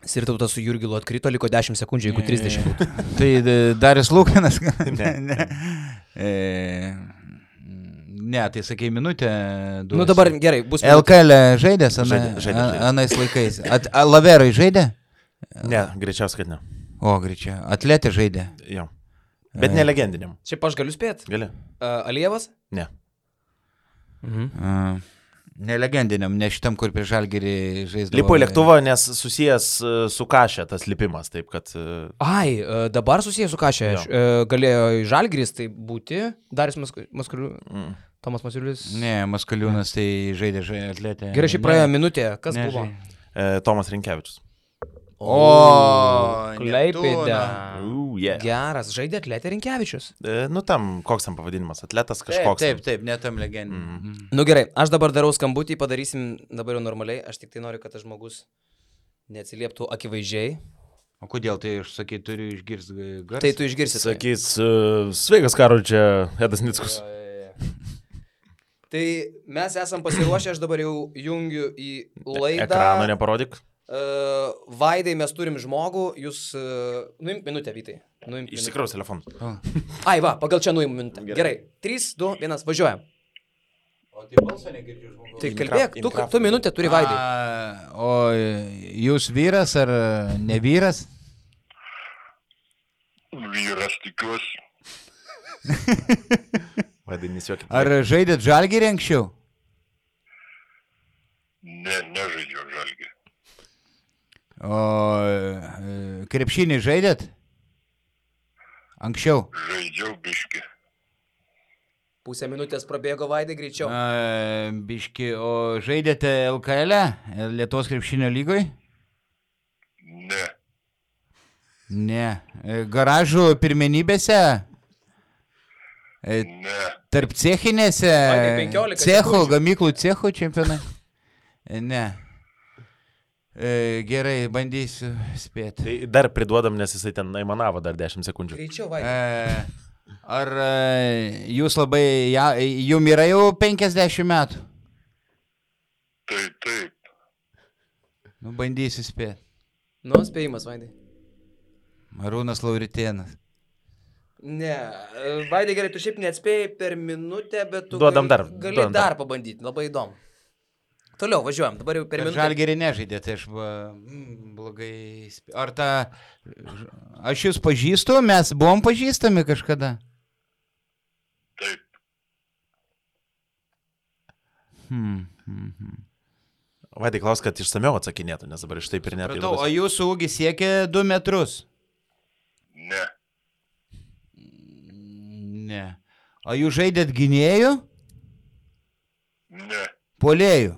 Sirtautas su Jurgilu atkrito, liko 10 sekundžių, jeigu 30 būtų. Tai Darius Lukanas? Ne. Ne, tai sakai minutę. Nu dabar gerai, bus minutė. LKL žaidęs Žaidė. anais laikais. Laverai žaidė? Ne, greičiausiai, kad ne. O, greičiau. Atletė žaidė. Jo. Bet ne legendiniam. Šiaip aš galiu spėti. Gali? Alievas? Ne. Ne legendiniam, ne šitam, kur prie Žalgirį žaisdavo. Lipo į lėktuvą, nes susijęs su kašė tas lipimas, taip kad... Ai, dabar susijęs su kašė. Galėjo į Žalgiris tai būti. Darius Tomas Masiulis. Ne, Maskaliūnas tai žaidė atletė. Gerai, šiaip praėjo minutė. Kas buvo? Tomas Rinkevičius. O, Klaipėda. Yeah. Geras, žaidė atletė Rinkevičius. Nu tam, koks tam pavadinimas, atletas kažkoks. Taip, ne tam legendiniam. Nu gerai, aš dabar darau skambutį, padarysim dabar jau normaliai. Aš tik tai noriu, kad tas žmogus neatsilieptų akivaizdžiai. O kodėl tai aš sakai, turiu išgirsti garsą? Tai tu išgirsi. Sakys, sveikas Karol, čia Edas Nickus. Tai mes esam pasiruošę, aš dabar jau jungiu į laidą. Ekrano neparodyk. Vaidai, mes turim žmogų, jūs... Nuimk minutę, Vytai. Išsikraus telefonus. Ai, va, pagal čia nuimu minutę. Gerai. 3, 2, 1, važiuojam. O tai balsą negirdžiu žmogaus. Tai kalbėk, tu minutę turi Vaidai. O jūs vyras ar ne vyras? Vyras, tikiuosi. Vaidai, nesijuokit. Ar žaidėt Žalgirį anksčiau? Ne, nežaidžiau Žalgirį. O krepšinį žaidėt? Anksčiau? Žaidžiau biškį. Pusę minutės prabėgo Vaidai greičiau. Biški, o žaidėte LKL, Lietuvos krepšinio lygoj? Ne. Ne. Garažų pirmenybėse? Ne. Tarp cechinėse? Vaidai, 15 Cechų, sekundžių. gamyklų cechų čempionai? Ne. Gerai, bandysiu spėti. Tai dar priduodam, nes jisai ten aimanavo dar 10 sekundžių. Greičiau, Vaidai. Ar jūs labai, jum yra jau 50 metų? Tai taip. Nu, bandysiu spėti. Nu, spėjimas, Vaidai. Arūnas Lauritėnas. Ne, Vaidai gerai, tu šiaip neatspėjai per minutę, bet tu Duodam dar, gali duodam dar pabandyti, labai įdomu. Toliau važiuojam, dabar jau per minutę. Žalgirį nežaidė, tai aš blogai... Ar ta... Aš jūs pažįstu, mes buvom pažįstami kažkada? Taip. Vaidai klaus, kad išsamiau atsakinėtų, nes dabar iš taip ir net. O jūsų ūgis siekia 2 metrus? Ne. Ne. O jūs žaidėt gynėjų? Ne. Puolėjų?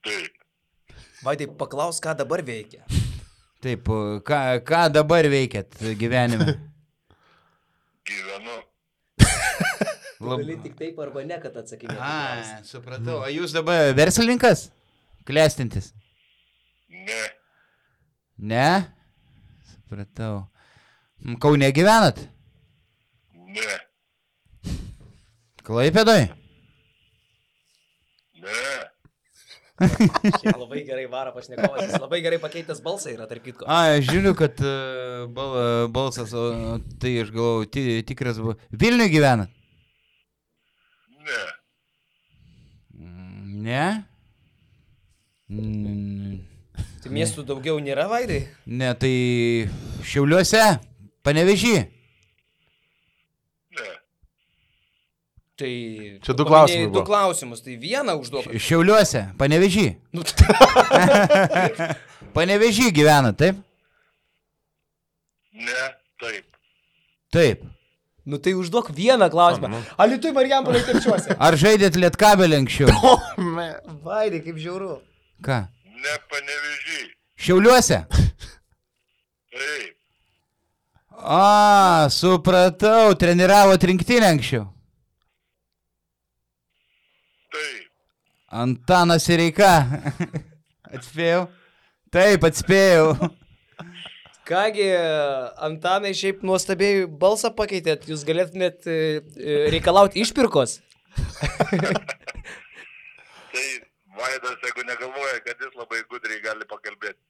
Taip. Vaidai, paklaus, ką dabar veikia. Taip, ką dabar veikėt gyvenime? Gyvenu. Gali tik taip arba ne, kad atsakinėtum. Supratau. O jūs dabar verslininkas? Klestintis? Ne. Ne? Supratau. Kaune gyvenat? Ne. Klaipėdoj? Ne. Labai gerai varo pašnekovas, jis labai gerai pakeitęs balsą yra, tarp kitko. Aš žiūriu, kad balsas, o tai aš galvoju, tikras buvo. Vilniuje gyvenat? Ne. Ne? Tai miestų daugiau nėra, Vaidai? Ne, tai Šiauliuose, Panevėžy. Ne. Tai... Čia du klausimai buvo. Du klausimus, tai vieną užduok. Šiauliuose, Panevėžy. Panevėžy gyvena, taip? Ne. Taip. Taip. Nu tai užduok vieną klausimą. Alytui Marijampolėj Telšiuose. Ar žaidėt Lietkabelį anksčiau? Vaidai, kaip žiauru. Ką? Ne Panevėžy. Šiauliuose? Taip. Supratau, treniravot rinktinę anksčiau. Taip. Antanas Sireika. Atspėjau? Taip, atspėjau. Kągi, Antanai, šiaip nuostabiai balsą pakeitėt, jūs galėtumėt reikalauti išpirkos? Tai Vaidas, jeigu negalvoja, kad jis labai gudriai gali pakalbėti.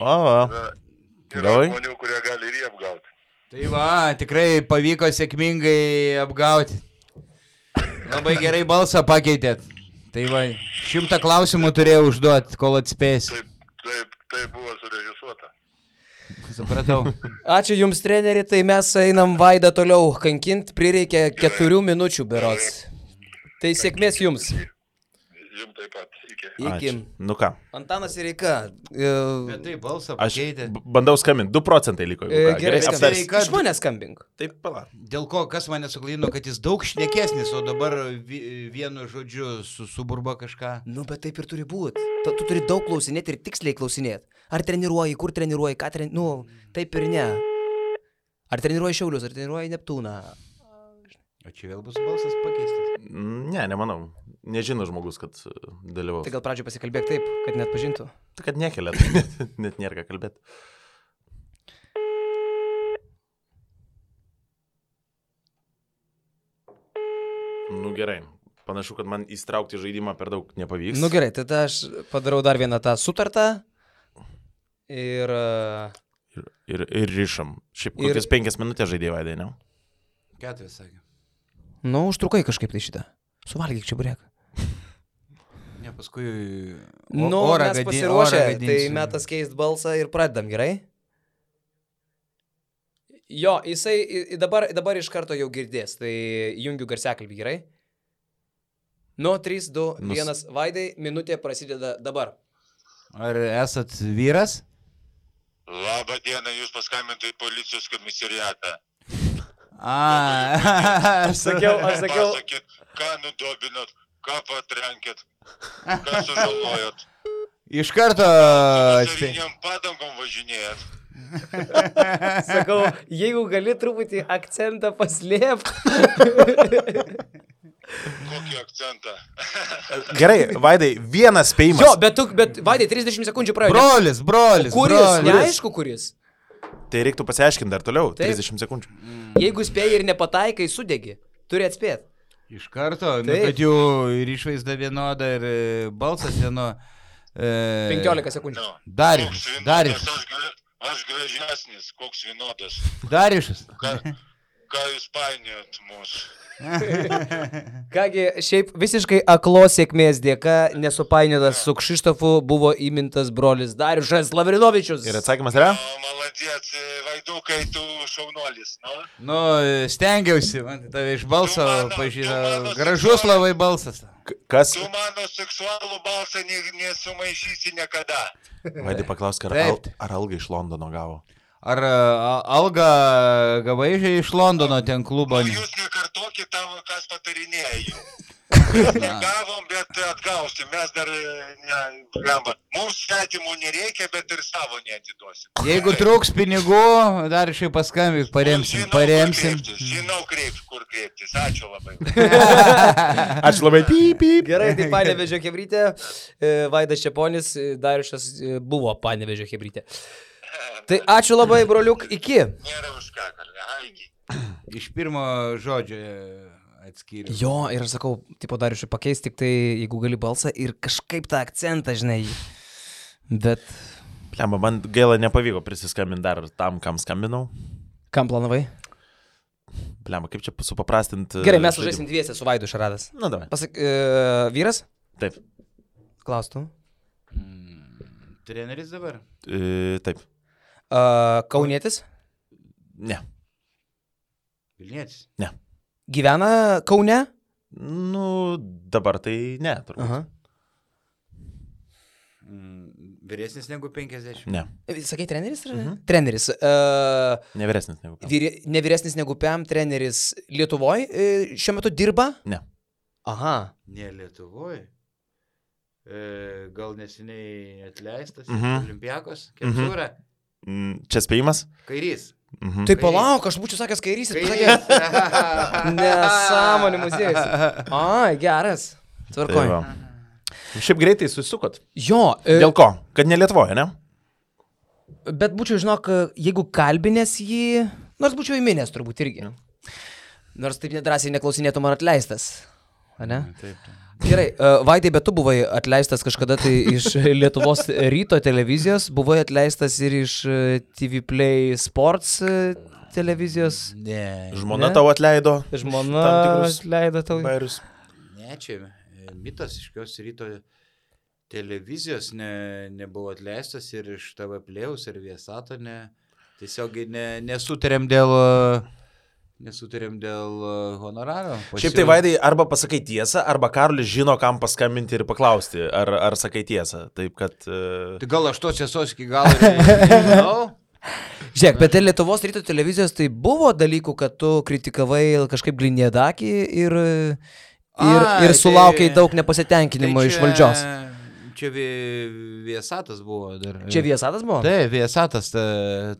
Yra žmonių, kurie gali ir jį apgauti. Tai va, tikrai pavyko sėkmingai apgauti. Labai gerai balsą pakeitėt. Tai va, 100 klausimų turėjau užduoti, kol atspėsi. Taip buvo surežisuota. Supratau. Ačiū Jums, treneri, tai mes einam Vaidą toliau kankint, prireikia 4 minučių berods. Tai sėkmės Jums. Jums taip pat. Iki. Nu ką? Antanas Sireika. Bet tai balsą pakeitė. Aš bandau skambinti, 2% liko. Gerai, aptarsim. iš manęs skambink. Taip, pala. Dėl ko, kas mane suklaidino, kad jis daug šnekesnis, o dabar vienu žodžiu suburba kažką. Nu, bet taip ir turi būti. Tu turi daug klausinėti ir tiksliai klausinėti. Ar treniruoji, kur treniruoji, ką treniruoji, nu, taip ir ne. Ar treniruoji Šiaulius, ar treniruoji Neptūną. O čia vėl bus balsas pakeistas? Ne, nemanau. Nežino žmogus, kad dalyvaus. Tai gal pradžio pasikalbėk taip, kad net pažintų. Tai kad nekelia, net nėra ką kalbėti. Nu gerai. Panašu, kad man įstraukti žaidimą per daug nepavyks. Nu gerai, tada aš padarau dar vieną tą sutartą. Ir rišam. Šiaip kokias 5 minutės žaidėjai, Vaidai, ne? 4 sakė. Nu, užtrukai kažkaip tai šitą. Suvalgyk čia burėką. Ne, paskui... Nu, mes pasiruošę, tai metas keist balsą ir pradedam, gerai? Jo, jisai dabar iš karto jau girdės, tai jungiu garsiakalbį, gerai? Nu, 3, 2, 1, Vaidai, minutė prasideda dabar. Ar esat vyras? Labą dieną, jūs paskambintų į policijos komisariatą. Aš sakiau. Pasakėt, ką nudobinot, ką patrenkėt, ką sužalojot. Iš karto... Saviniam padangom važinėjat. Sakau, jeigu gali truputį akcentą paslėpti. Kokį akcentą? Gerai, Vaidai, vienas spėjimas. Jo, bet Vaidai, 30 sekundžių praėjo. Brolis. Kuris? Neaišku, kuris. Tai reiktų pasiaiškinti dar toliau, Taip. 30 sekundžių. Jeigu spėjai ir nepataikai, sudegi. Turi atspėti. Iš karto, nu, kad jų ir išvaizda vienoda, ir balsas vieno... 15 sekundžių. Darius. Aš gražesnis, koks vienodas. Dariušas. Ką jūs painiojat mūsų? Kągi, šiaip visiškai aklos sėkmės dėka, nesupainiotas su Kšištofu, buvo įmintas brolis Dariušas Lavrinovičius. Ir atsakymas yra? Maladėt, Vaidukai, tu šaunuolis, nu? Nu, stengiausi, man tave iš balso pažįsta. Gražus labai balsas. Kas? Tu mano seksualų balsą nesumaišysi niekada. Vaidai paklausk, ar algą iš Londono gavo? Ar algą gavai iš Londono ten klubo? Jūs nekartokit tavo, kas patarinėja jų. Mes negavom, bet atgausim. Mes dar mums svetimų nereikia, bet ir savo neatiduosim. Jeigu trūks pinigų, dar šiai paskambik, paremsim. Žinau, kur kreiptis. Ačiū labai. Ačiū labai. Gerai, tai Panevėžio chebrytė, Vaidas Čeponis, Dariušas buvo Panevėžio chebrytė. Tai ačiū labai, broliuk, iki. Nėra už ką, iki. Iš pirmo žodžio atskiriu. Jo, ir aš sakau, tipo Dariušui pakeis tik tai, jeigu gali balsą ir kažkaip tą akcentą, žinai. Bet... Lemba, man gaila nepavyko prisiskambinti dar tam, kam skambinau. Kam planavai? Lemba, kaip čia supaprastinti... Gerai, mes užžaisim dviese su Vaidu Šaradas. Na, davai. Pasak, vyras? Taip. Klaustų. Treneris dabar? Taip. Kaunietis? Ne. Vilnietis? Ne. Gyvena Kaune? Nu, dabar tai ne, turbūt. Aha. Vyresnis negu 50? Ne. Sakai, treneris? Treneris. Nevyresnis negu Pem. Nevyresnis negu Pem, treneris Lietuvoje šiuo metu dirba? Ne. Aha. Ne Lietuvoje. Gal neseniai atleistas Olimpiakos? Kepsūra? Čia spėjimas? Kairys. Tai palauk, aš būčiau sakęs kairysis. Nesąmonė muziejus. Ai, geras. Tvarkoj. Šiaip greitai susukot. Jo. Dėl ko? Kad ne Lietuvoje, ne? Bet būčiau, žinok, jeigu kalbinės jį, nors būčiau įminęs turbūt irgi. Nors taip nedrąsiai neklausinėtum ar atleistas. A ne? Taip. Gerai, Vaidai, bet tu buvai atleistas kažkada tai iš Lietuvos ryto televizijos, buvai atleistas ir iš TV Play Sports televizijos. Ne. Žmona tau atleido. Žmona atleido tau. Bairius. Ne, čia mitas iškios ryto televizijos nebuvo atleistas ir iš TV Playaus ir Viesato tiesiog nesutarėm dėl honoraro. Šiaip tai, Vaidai, arba pasakai tiesą, arba Karolis žino, kam paskambinti ir paklausti, ar sakai tiesą. Taip, kad... Tai gal aš tos tiesos iki galo nežinau? Žiūrėk, bet Lietuvos ryto televizijos tai buvo dalykų, kad tu kritikavai kažkaip Gliniedakį ir sulaukiai daug nepasitenkinimo iš valdžios. Čia Viesatas buvo dar. Čia Viesatas buvo? Taip, Viesatas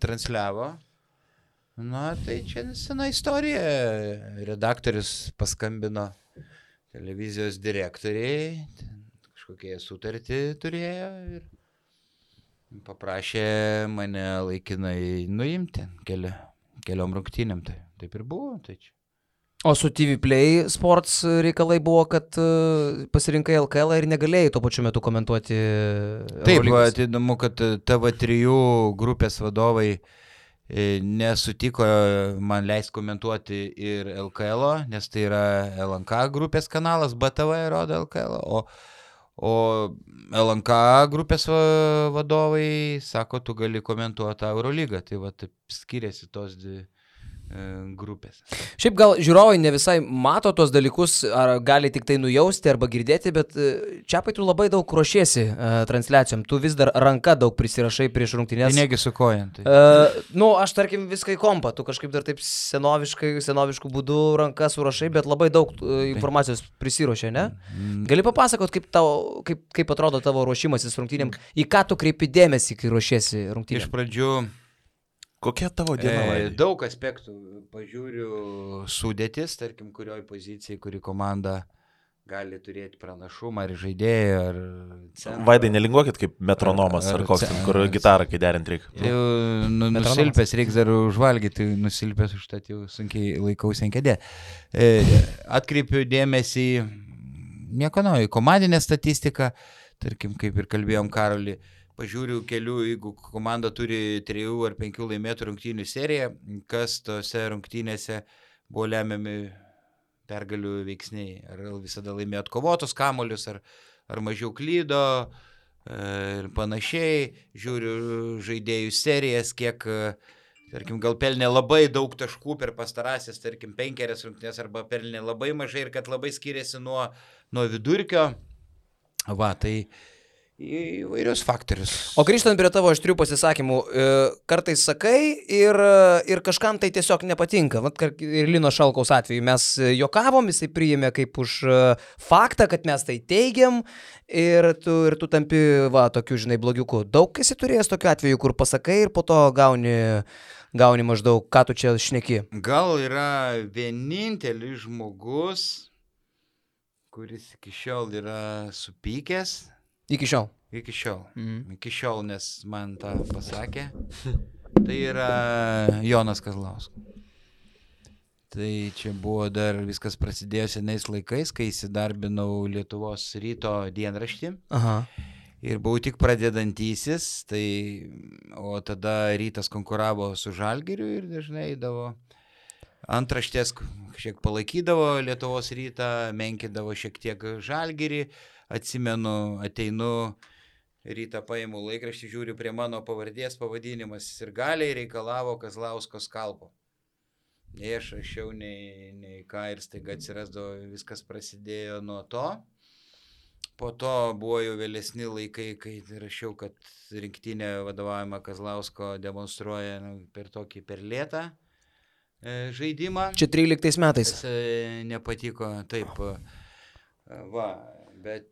transliavo. Na, tai čia sena istorija. Redaktorius paskambino televizijos direktoriai, kažkokie sutartį turėjo ir paprašė mane laikinai nuimti keliom rungtynėm. Taip ir buvo. Tai čia. O su TV Play Sports reikalai buvo, kad pasirinkai LKL ir negalėjai tuo pačiu metu komentuoti. Taip, įdomu, kad TV3 grupės vadovai nesutiko man leis komentuoti ir LKL, nes tai yra LNK grupės kanalas, BTV rodo LKL, o LNK grupės vadovai sako, tu gali komentuoti Eurolygą, tai va taip skiriasi tos dvi grupės. Šiaip gal žiūrovai ne visai mato tos dalykus, ar gali tik tai nujausti arba girdėti, bet Čiapai tu labai daug ruošiesi transliacijom, tu vis dar ranka daug prisirašai prieš rungtynės. Tai negi su kojant. Aš tarkim viską į kompą, tu kažkaip dar taip senoviškų būdų ranka surašai, bet labai daug informacijos prisiruošė, ne? Gali papasakot, kaip atrodo tavo ruošimasis rungtynėm, į ką tu kreipi dėmesį, kai ruošiesi rungtynėm? Iš pradžių kokia tavo diena? Daug aspektų. Pažiūriu sudėtis, tarkim, kurioj pozicijai, kuri komanda gali turėti pranašumą, ar žaidėjų, ar... Vaidai, nelinguokit kaip metronomas, ar koks, kur gitarą, kai derint reikia. Nusilpęs, reiks dar užvalgyti, nusilpęs užtat jau sunkiai laikausi ant kėdė. Atkreipiu dėmesį, nieko naujo, komandinė statistika, tarkim, kaip ir kalbėjom Karolį, pažiūriu kelių, jeigu komanda turi 3 ar 5 laimėtų rungtynių seriją, kas tose rungtynėse buvo lemiami pergalių veiksniai. Ar visada laimėjo atkovotus kamuolius, ar mažiau klydo ir panašiai. Žiūriu žaidėjų serijas, kiek, tarkim, gal pelnė labai daug taškų per pastarąsias, tarkim, 5 rungtynės arba pelnė labai mažai ir kad labai skiriasi nuo vidurkio. Va, tai įvairius faktorius. O grįžtant prie tavo aštrių pasisakymų, kartais sakai ir kažkam tai tiesiog nepatinka. Vat ir Lino Šalkaus atveju mes juokavom, jisai priėmė kaip už faktą, kad mes tai teigiam ir tu tampi, va, tokiu, žinai, blogiuku. Daug esi turėjęs tokiu atveju, kur pasakai ir po to gauni maždaug, ką tu čia šneki. Gal yra vienintelis žmogus, kuris iki šiol yra supykęs. Iki šiol. Iki šiol, nes man tą pasakė. Tai yra Jonas Kazlauskas. Tai čia buvo dar viskas prasidėjo senais laikais, kai įsidarbinau Lietuvos ryto dienraštį. Aha. Ir buvau tik pradedantysis, o tada rytas konkuravo su Žalgiriu ir dažnai eidavo antraštės, šiek palaikydavo Lietuvos rytą, menkindavo šiek tiek Žalgirį. Atsimenu, ateinu rytą, paimu laikraštį, žiūriu prie mano pavardės pavadinimas ir galiai reikalavo Kazlausko skalpo. Nei aš rašiau, nei ką ir staiga atsirasdavo, viskas prasidėjo nuo to. Po to buvo jau vėlesni laikai, kai rašiau, kad rinktinė vadovaujama Kazlausko demonstruoja per tokį per lėtą žaidimą. Čia 13 metais. Nepatiko, taip. Va, bet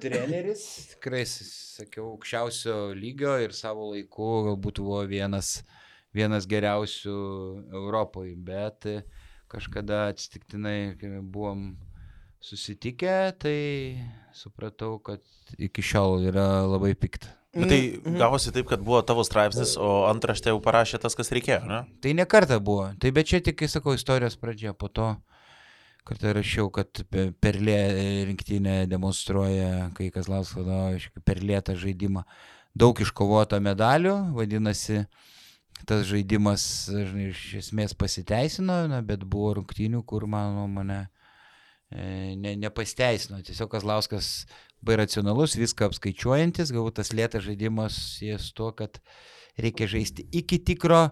treneris, tikrai, sakiau, aukščiausio lygio ir savo laiku galbūt buvo vienas geriausių Europoje, bet kažkada atsitiktinai, kai buvom susitikę, tai supratau, kad iki šiol yra labai pikta. Bet tai gavosi taip, kad buvo tavo straipsnis, o antraštę jau parašė tas, kas reikėjo, ne? Tai ne kartą buvo, tai bet čia tik, sakau, istorijos pradžia, po to kartą rašiau, kad Perlė rinktinė demonstruoja, kai Kazlauskas vadovauja per lėtą žaidimą. Daug iškovota medalių, vadinasi, tas žaidimas iš esmės pasiteisino, bet buvo rungtynių, kur, mano nuomonė, nepasiteisino. Tiesiog Kazlauskas labai racionalus, viską apskaičiuojantis, galbūt tas lėtas žaidimas sies tuo, kad reikia žaisti iki tikro,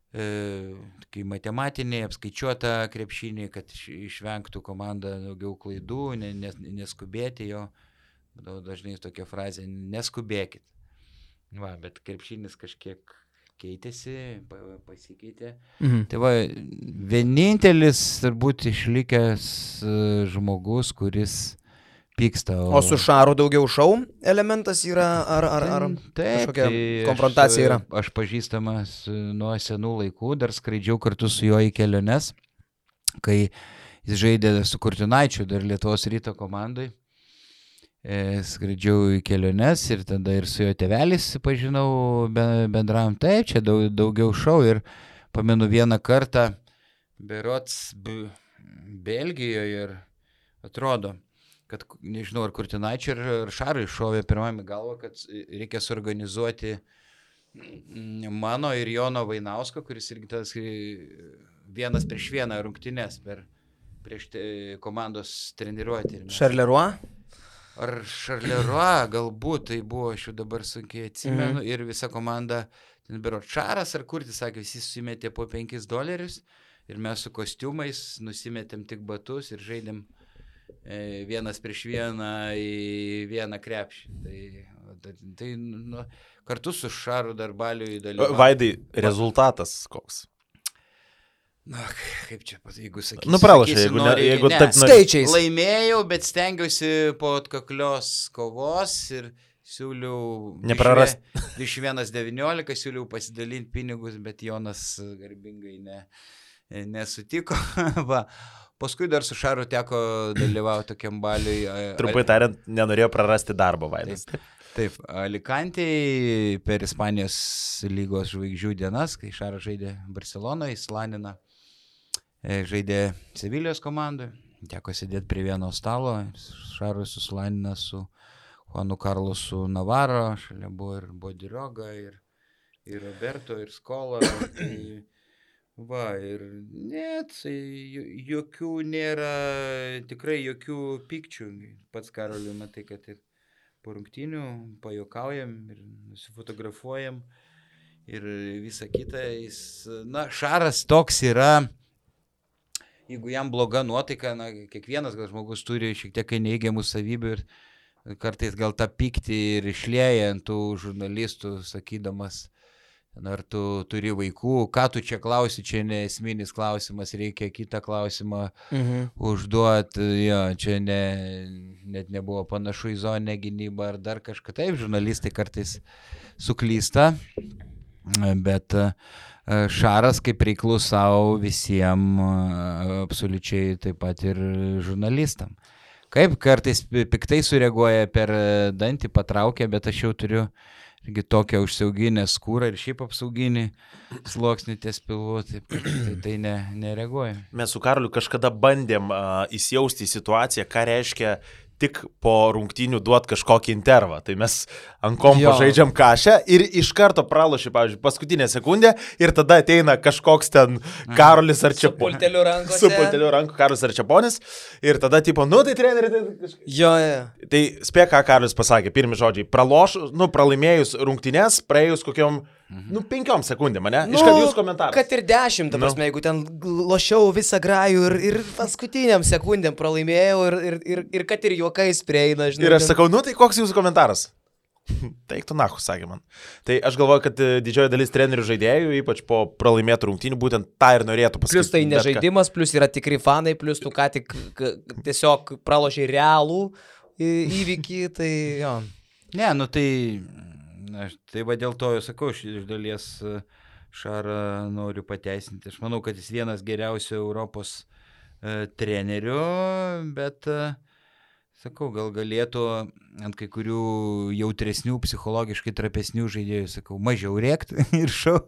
kai matematinė, apskaičiuota krepšinį, kad išvengtų komanda daugiau klaidų, neskubėti jo. Dažnai tokia frazė, neskubėkit. Va, bet krepšinis kažkiek keitėsi, pasikeitė. Tai va, vienintelis turbūt išlikęs žmogus, kuris pyksta. O su Šaru daugiau šou elementas yra, ar kažkokia konfrontacija yra? Aš pažįstamas nuo senų laikų, dar skraidžiau kartu su juo į keliones, kai jis žaidė su Kurtinaičiu, dar Lietuvos ryto komandai. Skraidžiau į keliones ir tada ir su jo tėvelis pažinau bendram. Taip, čia daugiau šou ir pamenu vieną kartą berods Belgijoje ir atrodo, kad, nežinau, ar Kurtinaičiui ar Šarui šovė pirmame galvo, kad reikia suorganizuoti mano ir Jono Vainausko, kuris irgi tas 1-1 rungtynes prieš komandos treniruotę. Šarleroi? Ar Šarleroi, galbūt tai buvo, aš jau dabar sunkiai atsimenu, ir visa komanda, ten bero Šaras ar Kurtis, sakė, visi susimetė po $5 ir mes su kostiumais nusimetėm tik batus ir žaidėm 1-1 į vieną krepšį. Tai kartu su Šaru Darbaliu įdalyvavo. Vaidai, rezultatas koks? Na, kaip čia, jeigu sakysiu. Pralašai, jeigu taip skaičiais. Laimėjau, bet stengiausi po atkaklios kovos ir siūliau neprarast. 21-19, siūliau pasidalinti pinigus, bet Jonas garbingai nesutiko. Va. Paskui dar su Šaru teko dalyvauti tokiam baliui. Trumpai tariant, nenorėjo prarasti darbo, Vaidas. Taip, Alicantėje per Ispanijos lygos žvaigždžių dienas, kai Šaras žaidė Barcelonoje, Slanina žaidė Sevilijos komandoje, teko sėdėti prie vieno stalo, Šaras su Slanina su Juanu Karlosu Navarro, šalia buvo ir Bodiroga, ir Roberto, ir Skola. Tai, va, ir net jokių nėra, tikrai jokių pykčių. Pats Karoliu, matai, kad ir po rungtynių pajuokaujam ir nusifotografuojam ir visa kita. Jis, Šaras toks yra, jeigu jam bloga nuotaika, kiekvienas gal žmogus turi šiek tiek neigiamų savybių ir kartais gal tą pyktį ir išlieja ant tų žurnalistų, sakydamas, ar tu turi vaikų, ką tu čia klausi, čia ne esminis klausimas, reikia kitą klausimą užduoti, čia net nebuvo panašu į zoninę gynybą ar dar kažką. Taip, žurnalistai kartais suklysta, bet Šaras kaip reiklus savo visiems, absoliučiai taip pat ir žurnalistam. Kaip kartais piktai sureaguoja per dantį, patraukia, bet aš jau turiu irgi tokią užsiauginę skūrą ir šiaip apsauginį sluoksnį ties pilvu, tai nereaguoja. Mes su Karoliu kažkada bandėm įsijausti į situaciją, ką reiškia tik po rungtynių duot kažkokį intervą. Tai mes ant kompo žaidžiam kašę ir iš karto pralošė, pavyzdžiui, paskutinę sekundę ir tada ateina kažkoks ten Karolis ar Čeponis. Su pulteliu ranku Karolis ar Čeponis. Ir tada tipo, tai treneri. Tai spėk, ką Karolis pasakė, pirmi žodžiai. Pralaimėjus rungtynės, praėjus kokiom 5 sekundėm, ne? Iškart jūs komentaras. Kad ir 10, ta prasme, jeigu ten lošiau visą grajų ir paskutiniam sekundėm pralaimėjau ir kad ir juokais prieina, žinai. Ir aš sakau, tai koks jūsų komentaras? Teiktų nahu, sakė man. Tai aš galvoju, kad didžioji dalis trenerių žaidėjų, ypač po pralaimėtų rungtynių, būtent tą ir norėtų pasakyti. Plus tai nežaidimas, plus yra tikri fanai, plus tu ką tik tiesiog pralošiai realų įvykį, tai jo. Ne, tai va dėl to, sakau, iš dalies Šarą noriu pateisinti. Aš manau, kad jis vienas geriausių Europos trenerių, bet, sakau, gal galėtų ant kai kurių jautresnių, psichologiškai trapesnių žaidėjų, sakau, mažiau rėkti ir šau.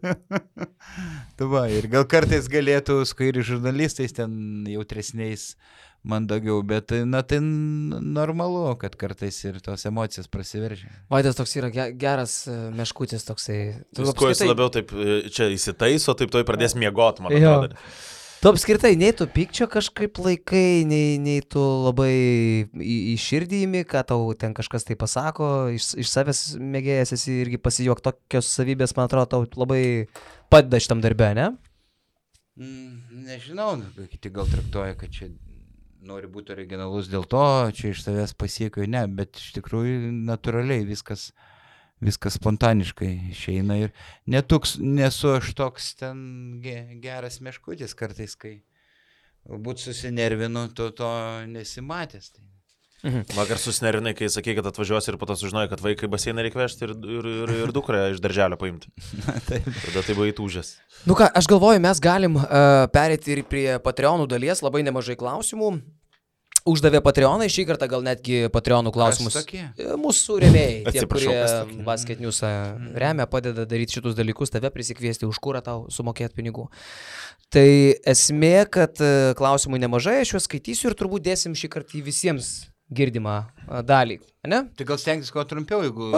Ir gal kartais galėtų su kairių žurnalistais ten jautresniais mandagiau, bet tai normalu, kad kartais ir tos emocijos prasiveržia. Vaidas toks yra geras meškutis toksai. Kuo jis labiau taip čia įsitaiso, taip toj pradės miegot, man atrodo. Tu apskritai nei tu pykčio kažkaip laikai, nei tu labai į širdį įmi, ką tau ten kažkas tai pasako, iš savęs mėgėjas esi irgi pasijuok, tokios savybės, man atrodo, tau labai padeda šitam darbe, ne? Nežinau, kiti gal traktuoja, kad čia nori būti originalus dėl to, čia iš savęs pasiekiu, ne, bet iš tikrųjų natūraliai viskas spontaniškai išeina ir nesu aš toks ten geras meškutis kartais, kai galbūt susinervinu, to nesimatęs. Vakar susinervinai, kai sakė, kad atvažiuosi ir po to sužinojai, kad vaikai baseiną reikia vežti ir dukrą iš darželio paimti. Tada tai buvo įtūžęs. Nu ką, aš galvoju, mes galim perėti ir prie Patreonų dalies, labai nemažai klausimų. Uždavė Patreonai, šį kartą gal netgi Patreonų klausimus. Mūsų rėmėjai, tie, kurie Basket News remia, padeda daryti šitus dalykus, tave prisikviesti už kurą tau sumokėti pinigų. Tai esmė, kad klausimų nemažai, aš juos skaitysiu ir turbūt dėsim šį kartą į visiems girdimą dalį, ne? Tai gal stengtis kuo trumpiau, jeigu...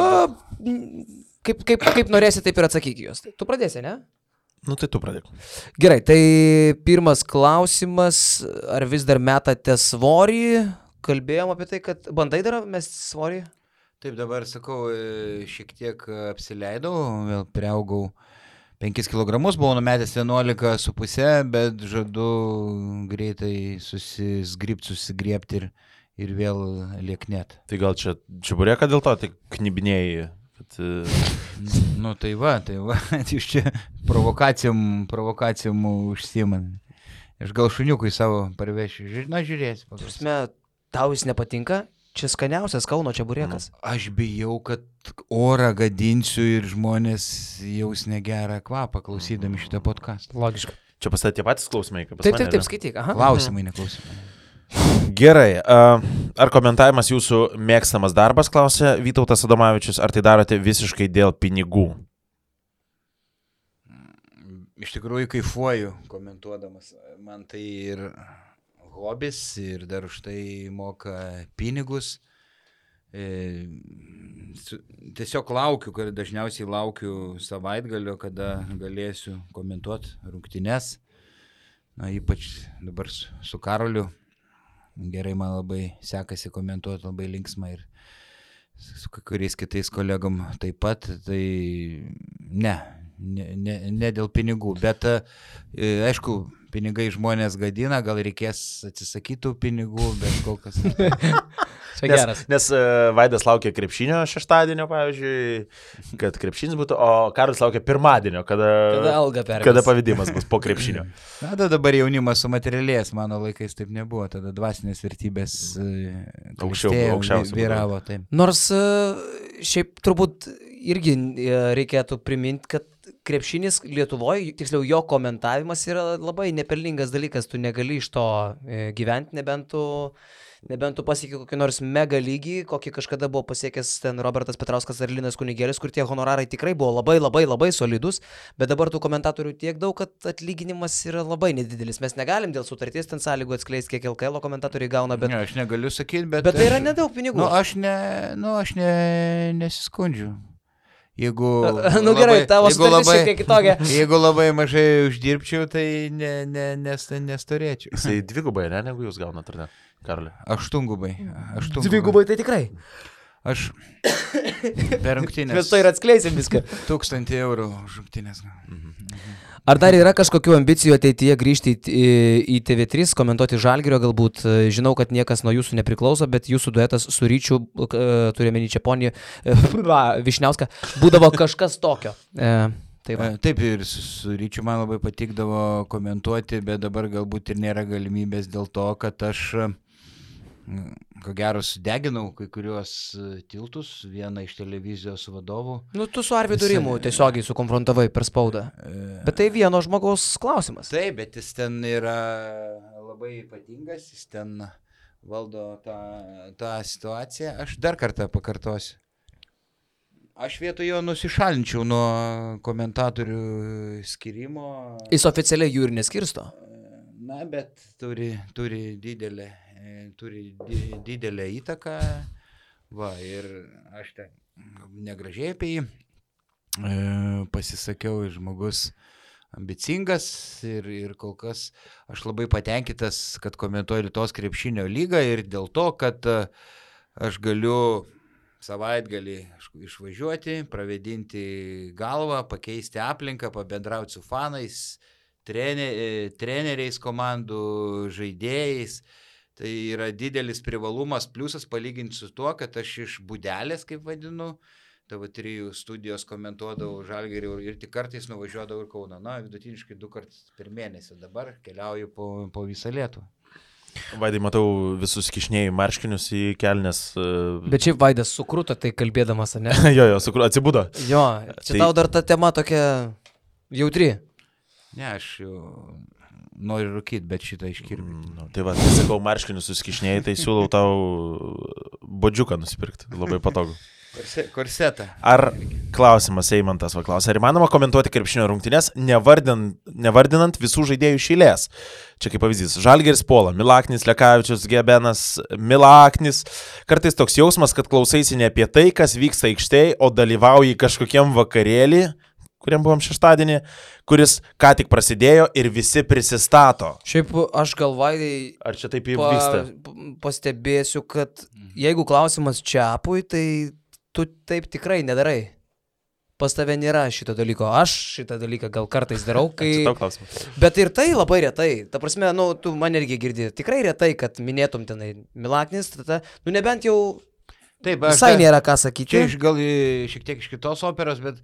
Kaip norėsi, taip ir atsakyk juos. Tu pradėsi, ne? Nu tai tu pradėk. Gerai, tai pirmas klausimas, ar vis dar metate svorį? Kalbėjom apie tai, kad bandai dar mesti svorį? Taip, dabar sakau, šiek tiek apsileidau, vėl priaugau 5 kg, buvau numetęs 11,5, bet žadu greitai susigriebti ir vėl lieknėt. Tai gal čia čiaburėka dėl to, tai knibinėjai? Nu tai va, jūs čia provokacijom užsiiman. Aš gal šuniukui savo parvešiu, žiūrėsi. Prasme, tau jis nepatinka? Čia skaniausias Kauno čiaburėkas. Aš bijau, kad orą gadinsiu ir žmonės jaus negerą kvapą klausydami šitą podcastą. Logiška. Čia pas tai tie patys klausimai, kaip pas mane. Taip, skaityk. Klausimai, neklausimai. Gerai, ar komentavimas jūsų mėgstamas darbas, klausė Vytautas Adomavičius, ar tai darote visiškai dėl pinigų? Iš tikrųjų kaifuoju komentuodamas, man tai ir hobis ir dar už tai moka pinigus, Tiesiog laukiu, kad dažniausiai laukiu savaitgalio, kada galėsiu komentuoti rungtynes. Na, ypač dabar su Karoliu. Gerai, man labai sekasi komentuoti, labai linksma ir su kuriais kitais kolegom taip pat. Tai ne dėl pinigų, bet aišku, pinigai žmonės gadina, gal reikės atsisakytų pinigų, bet kol kas. Nes Vaidas laukia krepšinio šeštadienio, pavyzdžiui, kad krepšinis būtų, o Karolis laukia pirmadienio, kada pavedimas bus po krepšinio. Na, dabar jaunimas sumaterialės, mano laikais taip nebuvo, tada dvasinės vertybės aukščiausiai vyravo. Taip. Nors šiaip turbūt irgi reikėtų priminti, kad krepšinis Lietuvoje, tiksliau jo komentavimas yra labai nepelningas dalykas, tu negali iš to gyventi, nebent tu pasiekė kokį nors mega lygį, kokį kažkada buvo pasiekęs ten Robertas Petrauskas ar Linas Kunigėlis, kur tie honorarai tikrai buvo labai solidus, bet dabar tų komentatorių tiek daug, kad atlyginimas yra labai nedidelis. Mes negalim dėl sutarties ten sąlygų atskleisti, kiek LKL komentatoriai gauna, bet... Ne, aš negaliu sakyti, bet tai yra nedaug pinigų. Aš nesiskundžiu. Jeigu gerai, tavo sutartis šiek tiek kitokia. Jeigu labai mažai uždirbčiau, tai nestorėčiau. Jisai dvigubai, negu jūs gaunat, ar ne, Karoli? Aštungubai. Dvigubai tai tikrai. Aš per rungtynės. Mes to ir atskleisim viską. 1000 eurų už rungtynės. Ar dar yra kažkokių ambicijų ateityje grįžti į TV3, komentuoti Žalgirio galbūt? Žinau, kad niekas nuo jūsų nepriklauso, bet jūsų duetas su Ryčiu, turime Čeponį, Višniauską, būdavo kažkas tokio. Taip, ir su Ryčiu man labai patikdavo komentuoti, bet dabar galbūt ir nėra galimybės dėl to, kad aš, ko gero, sudeginau kai kuriuos tiltus, vieną iš televizijos vadovų. Nu, tu su Arvydu Rimu tiesiogiai sukonfrontavai per spaudą. Bet tai vieno žmogaus klausimas. Taip, bet jis ten yra labai ypatingas, jis ten valdo tą situaciją. Aš dar kartą pakartosiu. Aš vietoj jo nusišalinčiau nuo komentatorių skirimo. Jis oficialiai jų ir neskirsto. Na, bet turi didelę įtaką. Va, ir aš ten negražiai apie jį pasisakiau, žmogus ambicingas ir kol kas aš labai patenkintas, kad komentuoju Lietuvos krepšinio lygą ir dėl to, kad aš galiu savaitgalį išvažiuoti, pravedinti galvą, pakeisti aplinką, pabendrauti su fanais, treneriais komandų, žaidėjais. Tai yra didelis privalumas, pliusas palyginti su tuo, kad aš iš būdelės, kaip vadinu, TV3 studijos komentuodavau Žalgirį ir tik kartais nuvažiuodavau ir Kauną. Na, vidutiniškai 2 kartus per mėnesį. Dabar keliauju po visą Lietuvą. Vaidai, matau visus kišnėjų marškinius į kelnes. Bet šiaip Vaidas sukruto tai kalbėdamas, ne? jo, atsibudo. Jo, čia tau dar ta tema tokia jautri. Ne, aš jau noriu rūkyti, bet šitą iškirpti. Tai va, sakau, marškinius suskišnėjai, tai siūlau tau bodžiuką nusipirkti. Labai patogu. Korsetą. Ar klausimas Eimantas klausė, ar įmanoma komentuoti krepšinio rungtynes, nevardinant visų žaidėjų iš eilės? Čia kaip pavyzdys, Žalgiris Pola, Milaknis, Lekavičius, Gebenas, Milaknis. Kartais toks jausmas, kad klausaisi ne apie tai, kas vyksta aikštėje, o dalyvauji kažkokiam vakarėlį, kuriam buvom šeštadienį, kuris ką tik prasidėjo ir visi prisistato. Šiaip aš galvai, ar čia taip vyksta? Pastebėsiu, kad jeigu klausimas Čiapui, tai tu taip tikrai nedarai. Pas tave nėra šito dalyko. Aš šitą dalyką gal kartais darau, kai... Bet ir tai labai retai. Ta prasme, tu man irgi girdi. Tikrai retai, kad minėtum tenai Milaknis, nebent jau taip, visai nėra ką sakyti. Čia gal šiek tiek iš kitos operos, bet...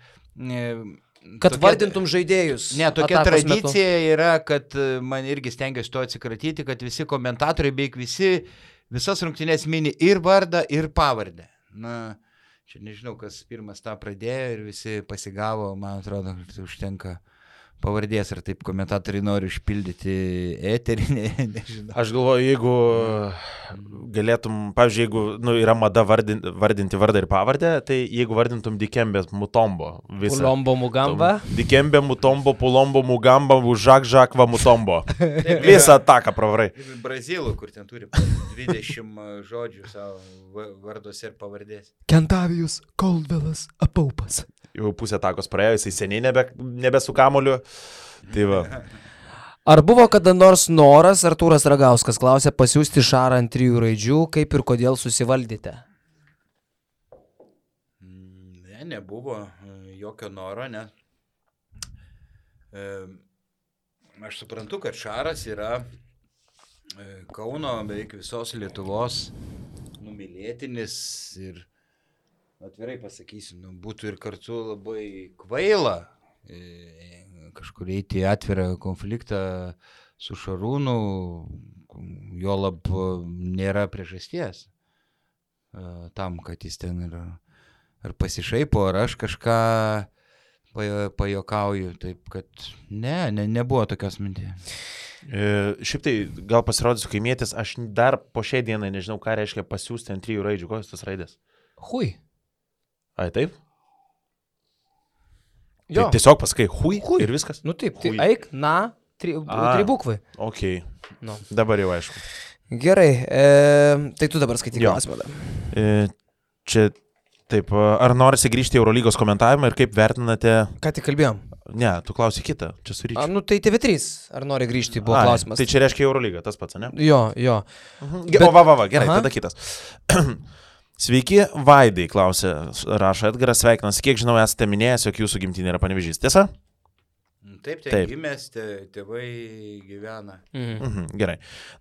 Kad vardintum žaidėjus. Ne, tokia tradicija yra, kad man irgi stengiuosi to atsikratyti, kad visi komentatoriai, beveik visas rungtynės mini ir vardą, ir pavardę. Na, čia nežinau, kas pirmas tą pradėjo ir visi pasigavo, man atrodo, kad užtenka pavardės, ar taip komentatoriai nori užpildyti eterį, nežinau. Aš galvoju, jeigu galėtum, pavyzdžiui, jeigu yra mada vardinti vardą ir pavardę, tai jeigu vardintum Dikembė Mutombo visą. Pulombo Mugamba. Dikembė Mutombo, Pulombo Mugamba, Žakva Mutombo. Visą ataką pravarai. Brazilų, kur ten turi 20 žodžių savo varduose ir pavardės. Kentavijus Koldvelas Apaupas. Jau pusę atakos praėjo, jisai seniai nebe su kamoliu. Tai va. Ar buvo kada nors noras, Artūras Ragauskas klausė, pasiųsti Šarą ant 3 raidžių, kaip ir kodėl susivaldėte? Ne, nebuvo jokio noro, ne. Aš suprantu, kad Šaras yra Kauno, beveik visos Lietuvos numylėtinis ir atvirai pasakysiu, būtų ir kartu labai kvaila kažkur eiti atvirą konfliktą su Šarūnu, jo lab nėra priežasties tam, kad jis ten ar pasišaipo, ar aš kažką pajokauju, taip kad nebuvo tokios minties. Šiaip tai gal pasirodysiu kaimietis, aš dar po šiai dienai nežinau, ką reiškia pasiūsti ant 3 raidžių, kokios tas raidės. Hui. Ai, taip? Jo. Tai tiesiog pasakai hui ir viskas? Nu taip, tai Hui. eik, na, 3 bukvai. Ok, Nu. dabar jau aišku. Gerai, tai tu dabar skaityk Jo. klausimą. Čia taip, ar norisi grįžti į Eurolygos komentavimą ir kaip vertinate... Ką tik kalbėjom? Ne, tu klausi kitą, čia su Ryčiu. Nu tai TV3, ar nori grįžti, buvo klausimas. Tai čia reiškia Eurolygą, tas pats, ne? Jo. Bet... O, gerai, tada kitas. Sveiki, Vaidai, klausė, rašo Edgaras, sveikinas. Kiek žinau, esate minėjęs, jog jūsų gimtinė yra Panevėžys, tiesa? Taip, gimęs, tėvai gyvena. Gerai.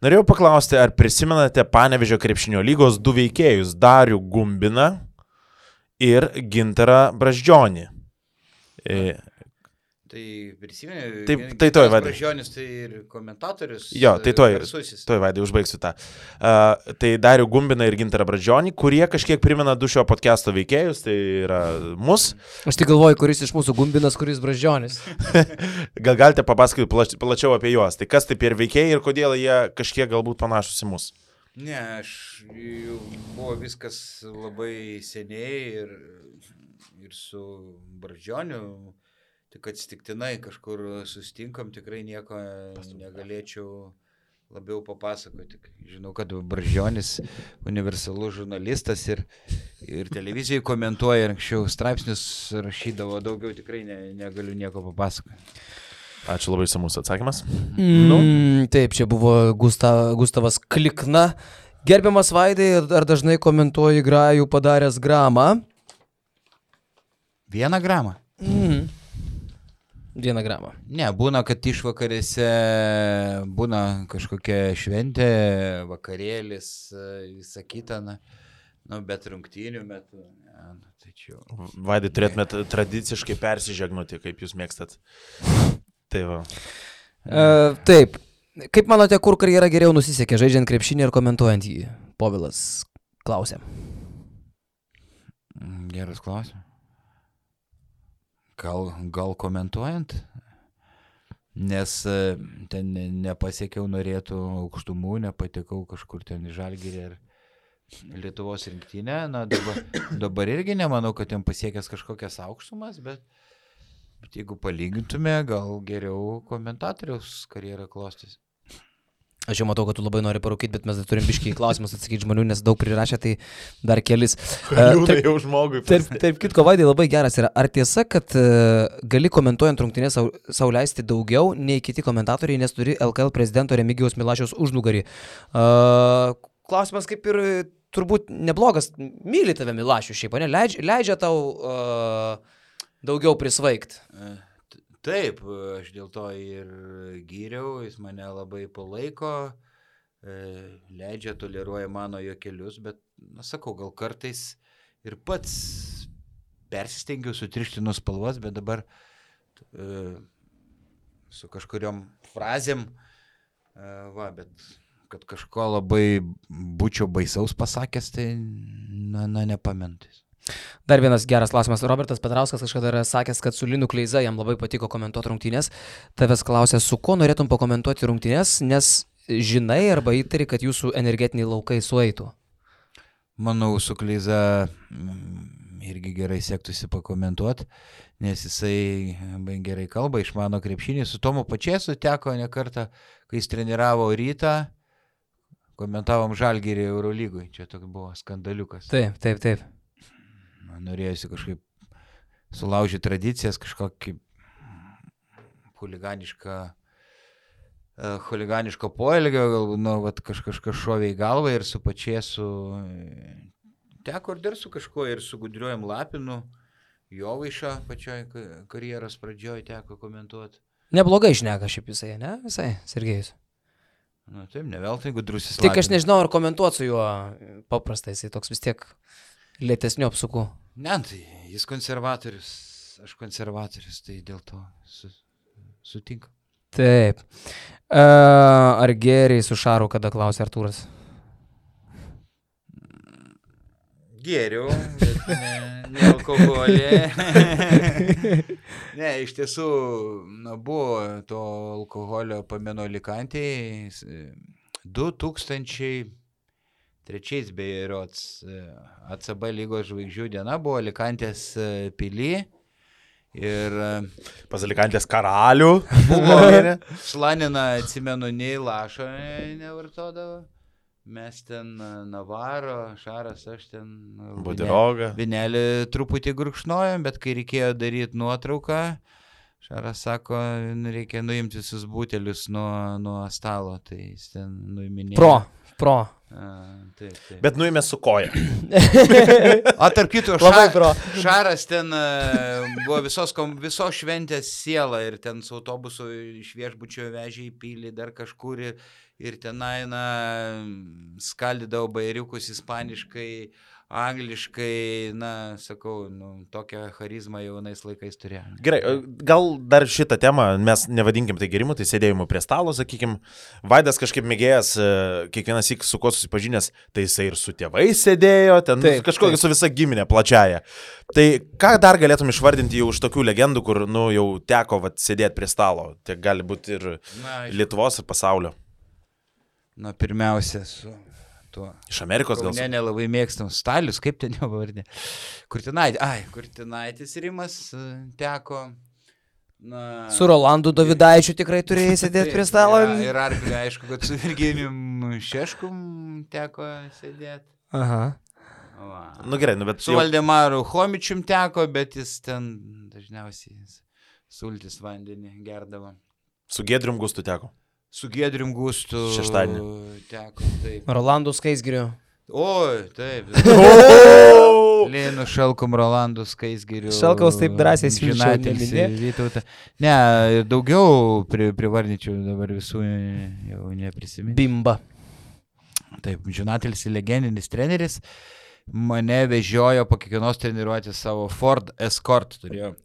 Norėjau paklausti, ar prisimenate Panevėžio krepšinio lygos 2 veikėjus, Darių Gumbiną ir Gintarą Brazdžionį? Tai prisimenu, tai toj, Vaidai. Brazdžionis tai ir komentatorius. Jo, tai toj, Vaidai, užbaigsiu tą. Tai Darių Gumbiną ir Gintarą Brazdžionį, kurie kažkiek primena 2 šio podcast'o veikėjus, tai yra mus. Aš tik galvoju, kuris iš mūsų Gumbinas, kuris Brazdžionis. Gal galite papasakoti plačiau apie juos? Tai kas tai per veikėjai ir kodėl jie kažkiek galbūt panašus į mus? Ne, buvo viskas labai seniai ir su Brazdžioniu. Tik atsitiktinai kažkur susitinkam, tikrai nieko negalėčiau labiau papasakoti. Žinau, kad Brazdžionis universalus žurnalistas ir televizijai komentuoja, anksčiau straipsnius rašydavo, daugiau tikrai negaliu nieko papasakoti. Ačiū labai samus atsakymas. Taip, čia buvo Gustavas Klikna. Gerbiamas Vaidai, ar dažnai komentuoji grajų padaręs gramą? 1 gramą. 1 gramą. Ne, būna, kad išvakarėse būna kažkokia šventė, vakarėlis, visa kita, bet rungtynių metu. Tai čia... Vaidai, turėtumėt tradiciškai persižegnuoti, kaip jūs mėgstat. Tai va. Taip. Kaip manote, kur karjera geriau nusisekė, žaidžiant krepšinį ir komentuojant jį? Povilas klausė. Geras klausimas. Gal komentuojant, nes ten nepasiekiau norėtų aukštumų, nepatekau kažkur ten į Žalgirį ir Lietuvos rinktinę. Dabar irgi nemanau, kad ten pasiekęs kažkokias aukštumas, bet jeigu palygintume, gal geriau komentatoriaus karjerą klostys. Aš jau matau, kad tu labai nori parūkyti, bet mes dar turim biškiai klausimus atsakyti žmonių, nes daug prirašė, tai dar kelis. Liūdai jau žmogui. Taip, kitko, Vaidai, labai geras yra. Ar tiesa, kad gali komentuojant rungtynės sau leisti daugiau nei kiti komentatoriai, nes turi LKL prezidento Remigijaus Milašiaus užnugarį? Klausimas kaip ir turbūt neblogas. Myli tave Milašius šiaip, ne? Leidžia tau daugiau prisvaigt. Taip, aš dėl to ir gyriau, jis mane labai palaiko, leidžia, toleruoja mano juokelius, bet, sakau, gal kartais ir pats persistengiau sutrišti nuo spalvos, bet dabar su kažkuriom frazėm, bet kad kažko labai būčiau baisaus pasakęs, tai nepamentais. Dar vienas geras klausimas. Robertas Petrauskas kažkada yra sakęs, kad su Linu Kleiza jam labai patiko komentuoti rungtynės. Tavęs klausė, su kuo norėtum pakomentuoti rungtynės, nes žinai arba įtari, kad jūsų energetiniai laukai sueitų. Manau, su Kleiza irgi gerai sektųsi pakomentuoti, nes jisai gerai kalba, išmano krepšinį. Su Tomu Pačėsu teko ne kartą, kai jis treniravo Rytą, komentavom Žalgirį Eurolygui. Čia toks buvo skandaliukas. Taip. Norėjusi kažkaip sulaužyti tradicijas, kažkokį huliganiško poelgio, galbūt kažkas šovė į galvą ir su Pačėsu teko ir dar su kažkuo, ir su Gudriuojam Lapinu, Jovaišą pačioj karjeros pradžioj teko komentuoti. Neblogai šneka šiaip jisai, ne? Visai, Sergejus. Na taip, ne veltui Gudrusis Lapinas. Tik aš nežinau, ar komentuoti su juo paprastai, jisai toks vis tiek lėtesnių apsukų. Ne, tai jis konservatorius, aš konservatorius, tai dėl to sutinku. Taip. Ar geriai su Šaru, kada klausė Artūras? Geriau, bet ne alkoholį. Ne, iš tiesų, buvo to alkoholio pameno Alikantėje 2003 beje ACB lygos žvaigždžių diena buvo Alikantės pily ir Pas Alikantės karalių. buvo Šlanina, atsimenu, nei lašo nevartodavo. Mes ten Navaro, Šaras, aš ten Budirogą. Vinelį truputį gurkšnojom, bet kai reikėjo daryti nuotrauką, Šaras sako, reikia nuimti visus butelius nuo stalo, tai jis ten nuiminėjo. Pro. Taip. Bet nuėmė su koja. Tarp kito, Šaras ten buvo visos šventės siela ir ten su autobusu iš viešbučio vežė į pilį dar kažkur ir tenai skaldydavo bairiukus ispaniškai, angliškai, sakau, tokią charizmą jaunais laikais turėjo. Gerai, gal dar šitą temą, mes nevadinkim tai gerimu, tai sėdėjimu prie stalo, sakykim, Vaidas kažkaip mėgėjęs, kiekvienas syk su kuo susipažinęs, tai jisai ir su tėvais sėdėjo, ten kažkokia su visa giminė plačiaja. Tai ką dar galėtum išvardinti jau už tokių legendų, kur, jau teko sėdėti prie stalo, tiek gali būti ir Lietuvos, ir pasaulio. Pirmiausia, su tuo. Iš Amerikos gal? Ne, nelabai mėgstam. Stalius, kaip ten jo pavardė? Kurtinaitis Rimas teko. Su Rolandu Dovydaičiu tikrai turėjai sėdėti prie stalo. Ir Arklį, aišku, kad su Virginijum Šeškum teko sėdėti. Aha. Gerai, bet su Valdemaru Homičium teko, bet jis ten dažniausiai sultis vandenį gerdavo. Su Giedrium Gustu teko. Su Giedrium Gustu šeštadienį teko, taip. Rolandu Skaisgiriu. Oi, taip. Lėnu Šalkom, Rolandu Skaisgiriu. Šalkaus taip drąsiai svilčiau. Ne, daugiau privardinčiau, dabar visų jau neprisiminti. Bimba. Taip, Žinatelis legendinis treneris. Mane vežiojo po kiekvienos treniruotės savo Ford Escort, turėjo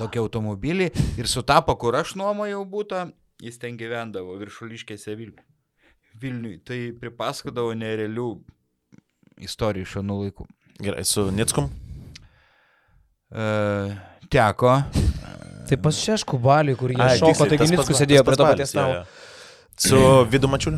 tokį automobilį ir sutapo, kur aš nuomojau būtą. Jis ten gyvendavo Viršuliškėse Vilniui. Tai pripaskodavo nerealių istorijų iš anų laikų. Gerai, su Nickum? Teko. Tai pas Šeškų Baliui, kur jie šoko, taigi Nickus sėdėjo prie to paties stalo. Su Vidu Mačiuliu?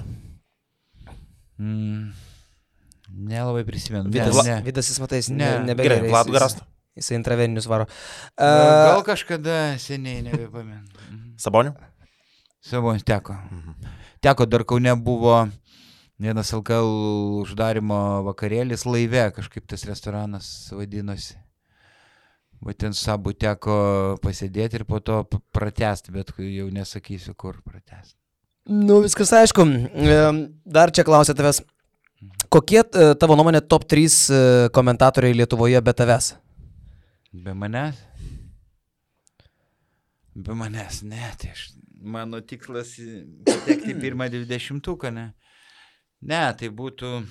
Nelabai prisimenu. Vidas jis matais nebegerai. Gerai, Vladu Garastu? Jisai intraveninius varo. Gal kažkada seniai nebepamenu. Saboniu? Sabonis teko. Teko, dar Kaune buvo vienas LKL uždarimo vakarėlis laive, kažkaip tas restoranas vadinosi. Va ten Sabu teko pasėdėti ir po to pratęsti, bet jau nesakysiu, kur pratęsti. Viskas aišku. Dar čia klausia tavęs. Kokie tavo nuomonė top 3 komentatoriai Lietuvoje be tavęs? Be manęs? Be manęs, ne, tai mano tikslas patekti pirmą 20-uką, ne. Ne, tai būtų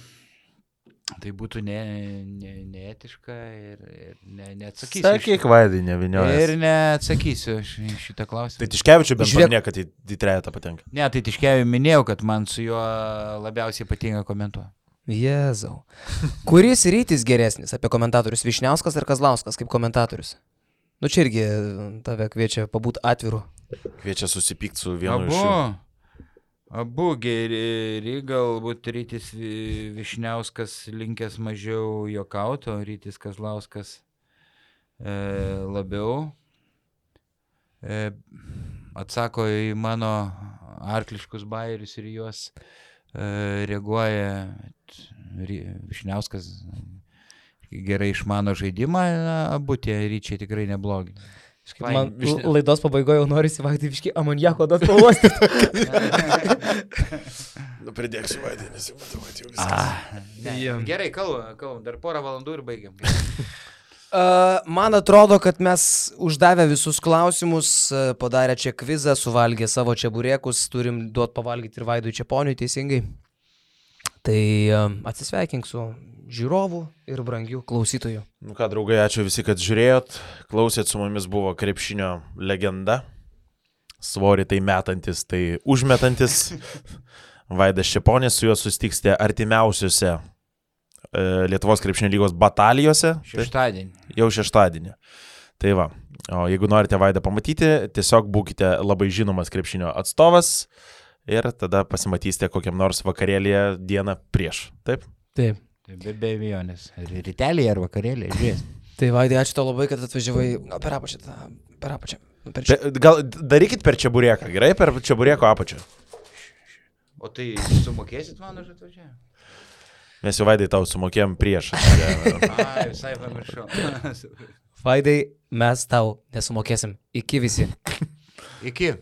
neetiška ir neatsakysiu. Sakyk, Vaidai, neviniojas. Ir neatsakysiu šitą klausimą. Tai Tiškevičiu bent paminė, kad į trejetą patenka. Ne, tai Tiškevičiu minėjau, kad man su juo labiausiai patinka komentuoti. Jėzau. Kuris rytis geresnis apie komentatorius? Vyšniauskas ar Kazlauskas kaip komentatorius? Nu čia irgi tave kviečia pabūti atviru. Kviečia susipykti su vienu iš jų. Abu geri, galbūt rytis Vyšniauskas linkęs mažiau juokauti, o rytis Kazlauskas labiau atsako į mano arkliškus bajerius ir juos reaguoja. Vyšniauskas gerai išmano žaidimą, abu tie ryčiai tikrai neblogi. Man laidos pabaigoje jau norisi Vaidai viškai amoniako duot pavostyti. Pridėksiu Vaidai, nes jau matau, kad jau viskas. Gerai, kalbam, dar porą valandų ir baigiam. Man atrodo, kad mes uždavę visus klausimus, padarę čia kvizą, suvalgę savo čeburėkus, turim duot pavalgyti ir Vaidui Čeponiui teisingai. Tai atsisveikink su žiūrovų ir brangių klausytojų. Nu ką, draugai, ačiū visi, kad žiūrėjot. Klausėt, su mumis buvo krepšinio legenda. Svorį tai metantis, tai užmetantis. Vaidas Čeponis, su juo susitiksite artimiausiuose Lietuvos krepšinio lygos batalijose. Šeštadienį. Jau šeštadienį. Tai va, o jeigu norite Vaidą pamatyti, tiesiog būkite labai žinomas krepšinio atstovas ir tada pasimatysite kokiam nors vakarėlėje dieną prieš. Taip? Taip. Be abejonės. Rytelį ar vakarėlį, žiūrės. Tai Vaidai, ačiū tau labai, kad atvažiavai. Gal per apačią. Gal darykit per čeburėką, gerai? Per čeburėko apačią. O tai sumokėsit man už atvažiavimą? Mes jau Vaidai tau sumokėjom prieš. Visai pamiršau. Vaidai, mes tau nesumokėsim. Iki visi. Iki.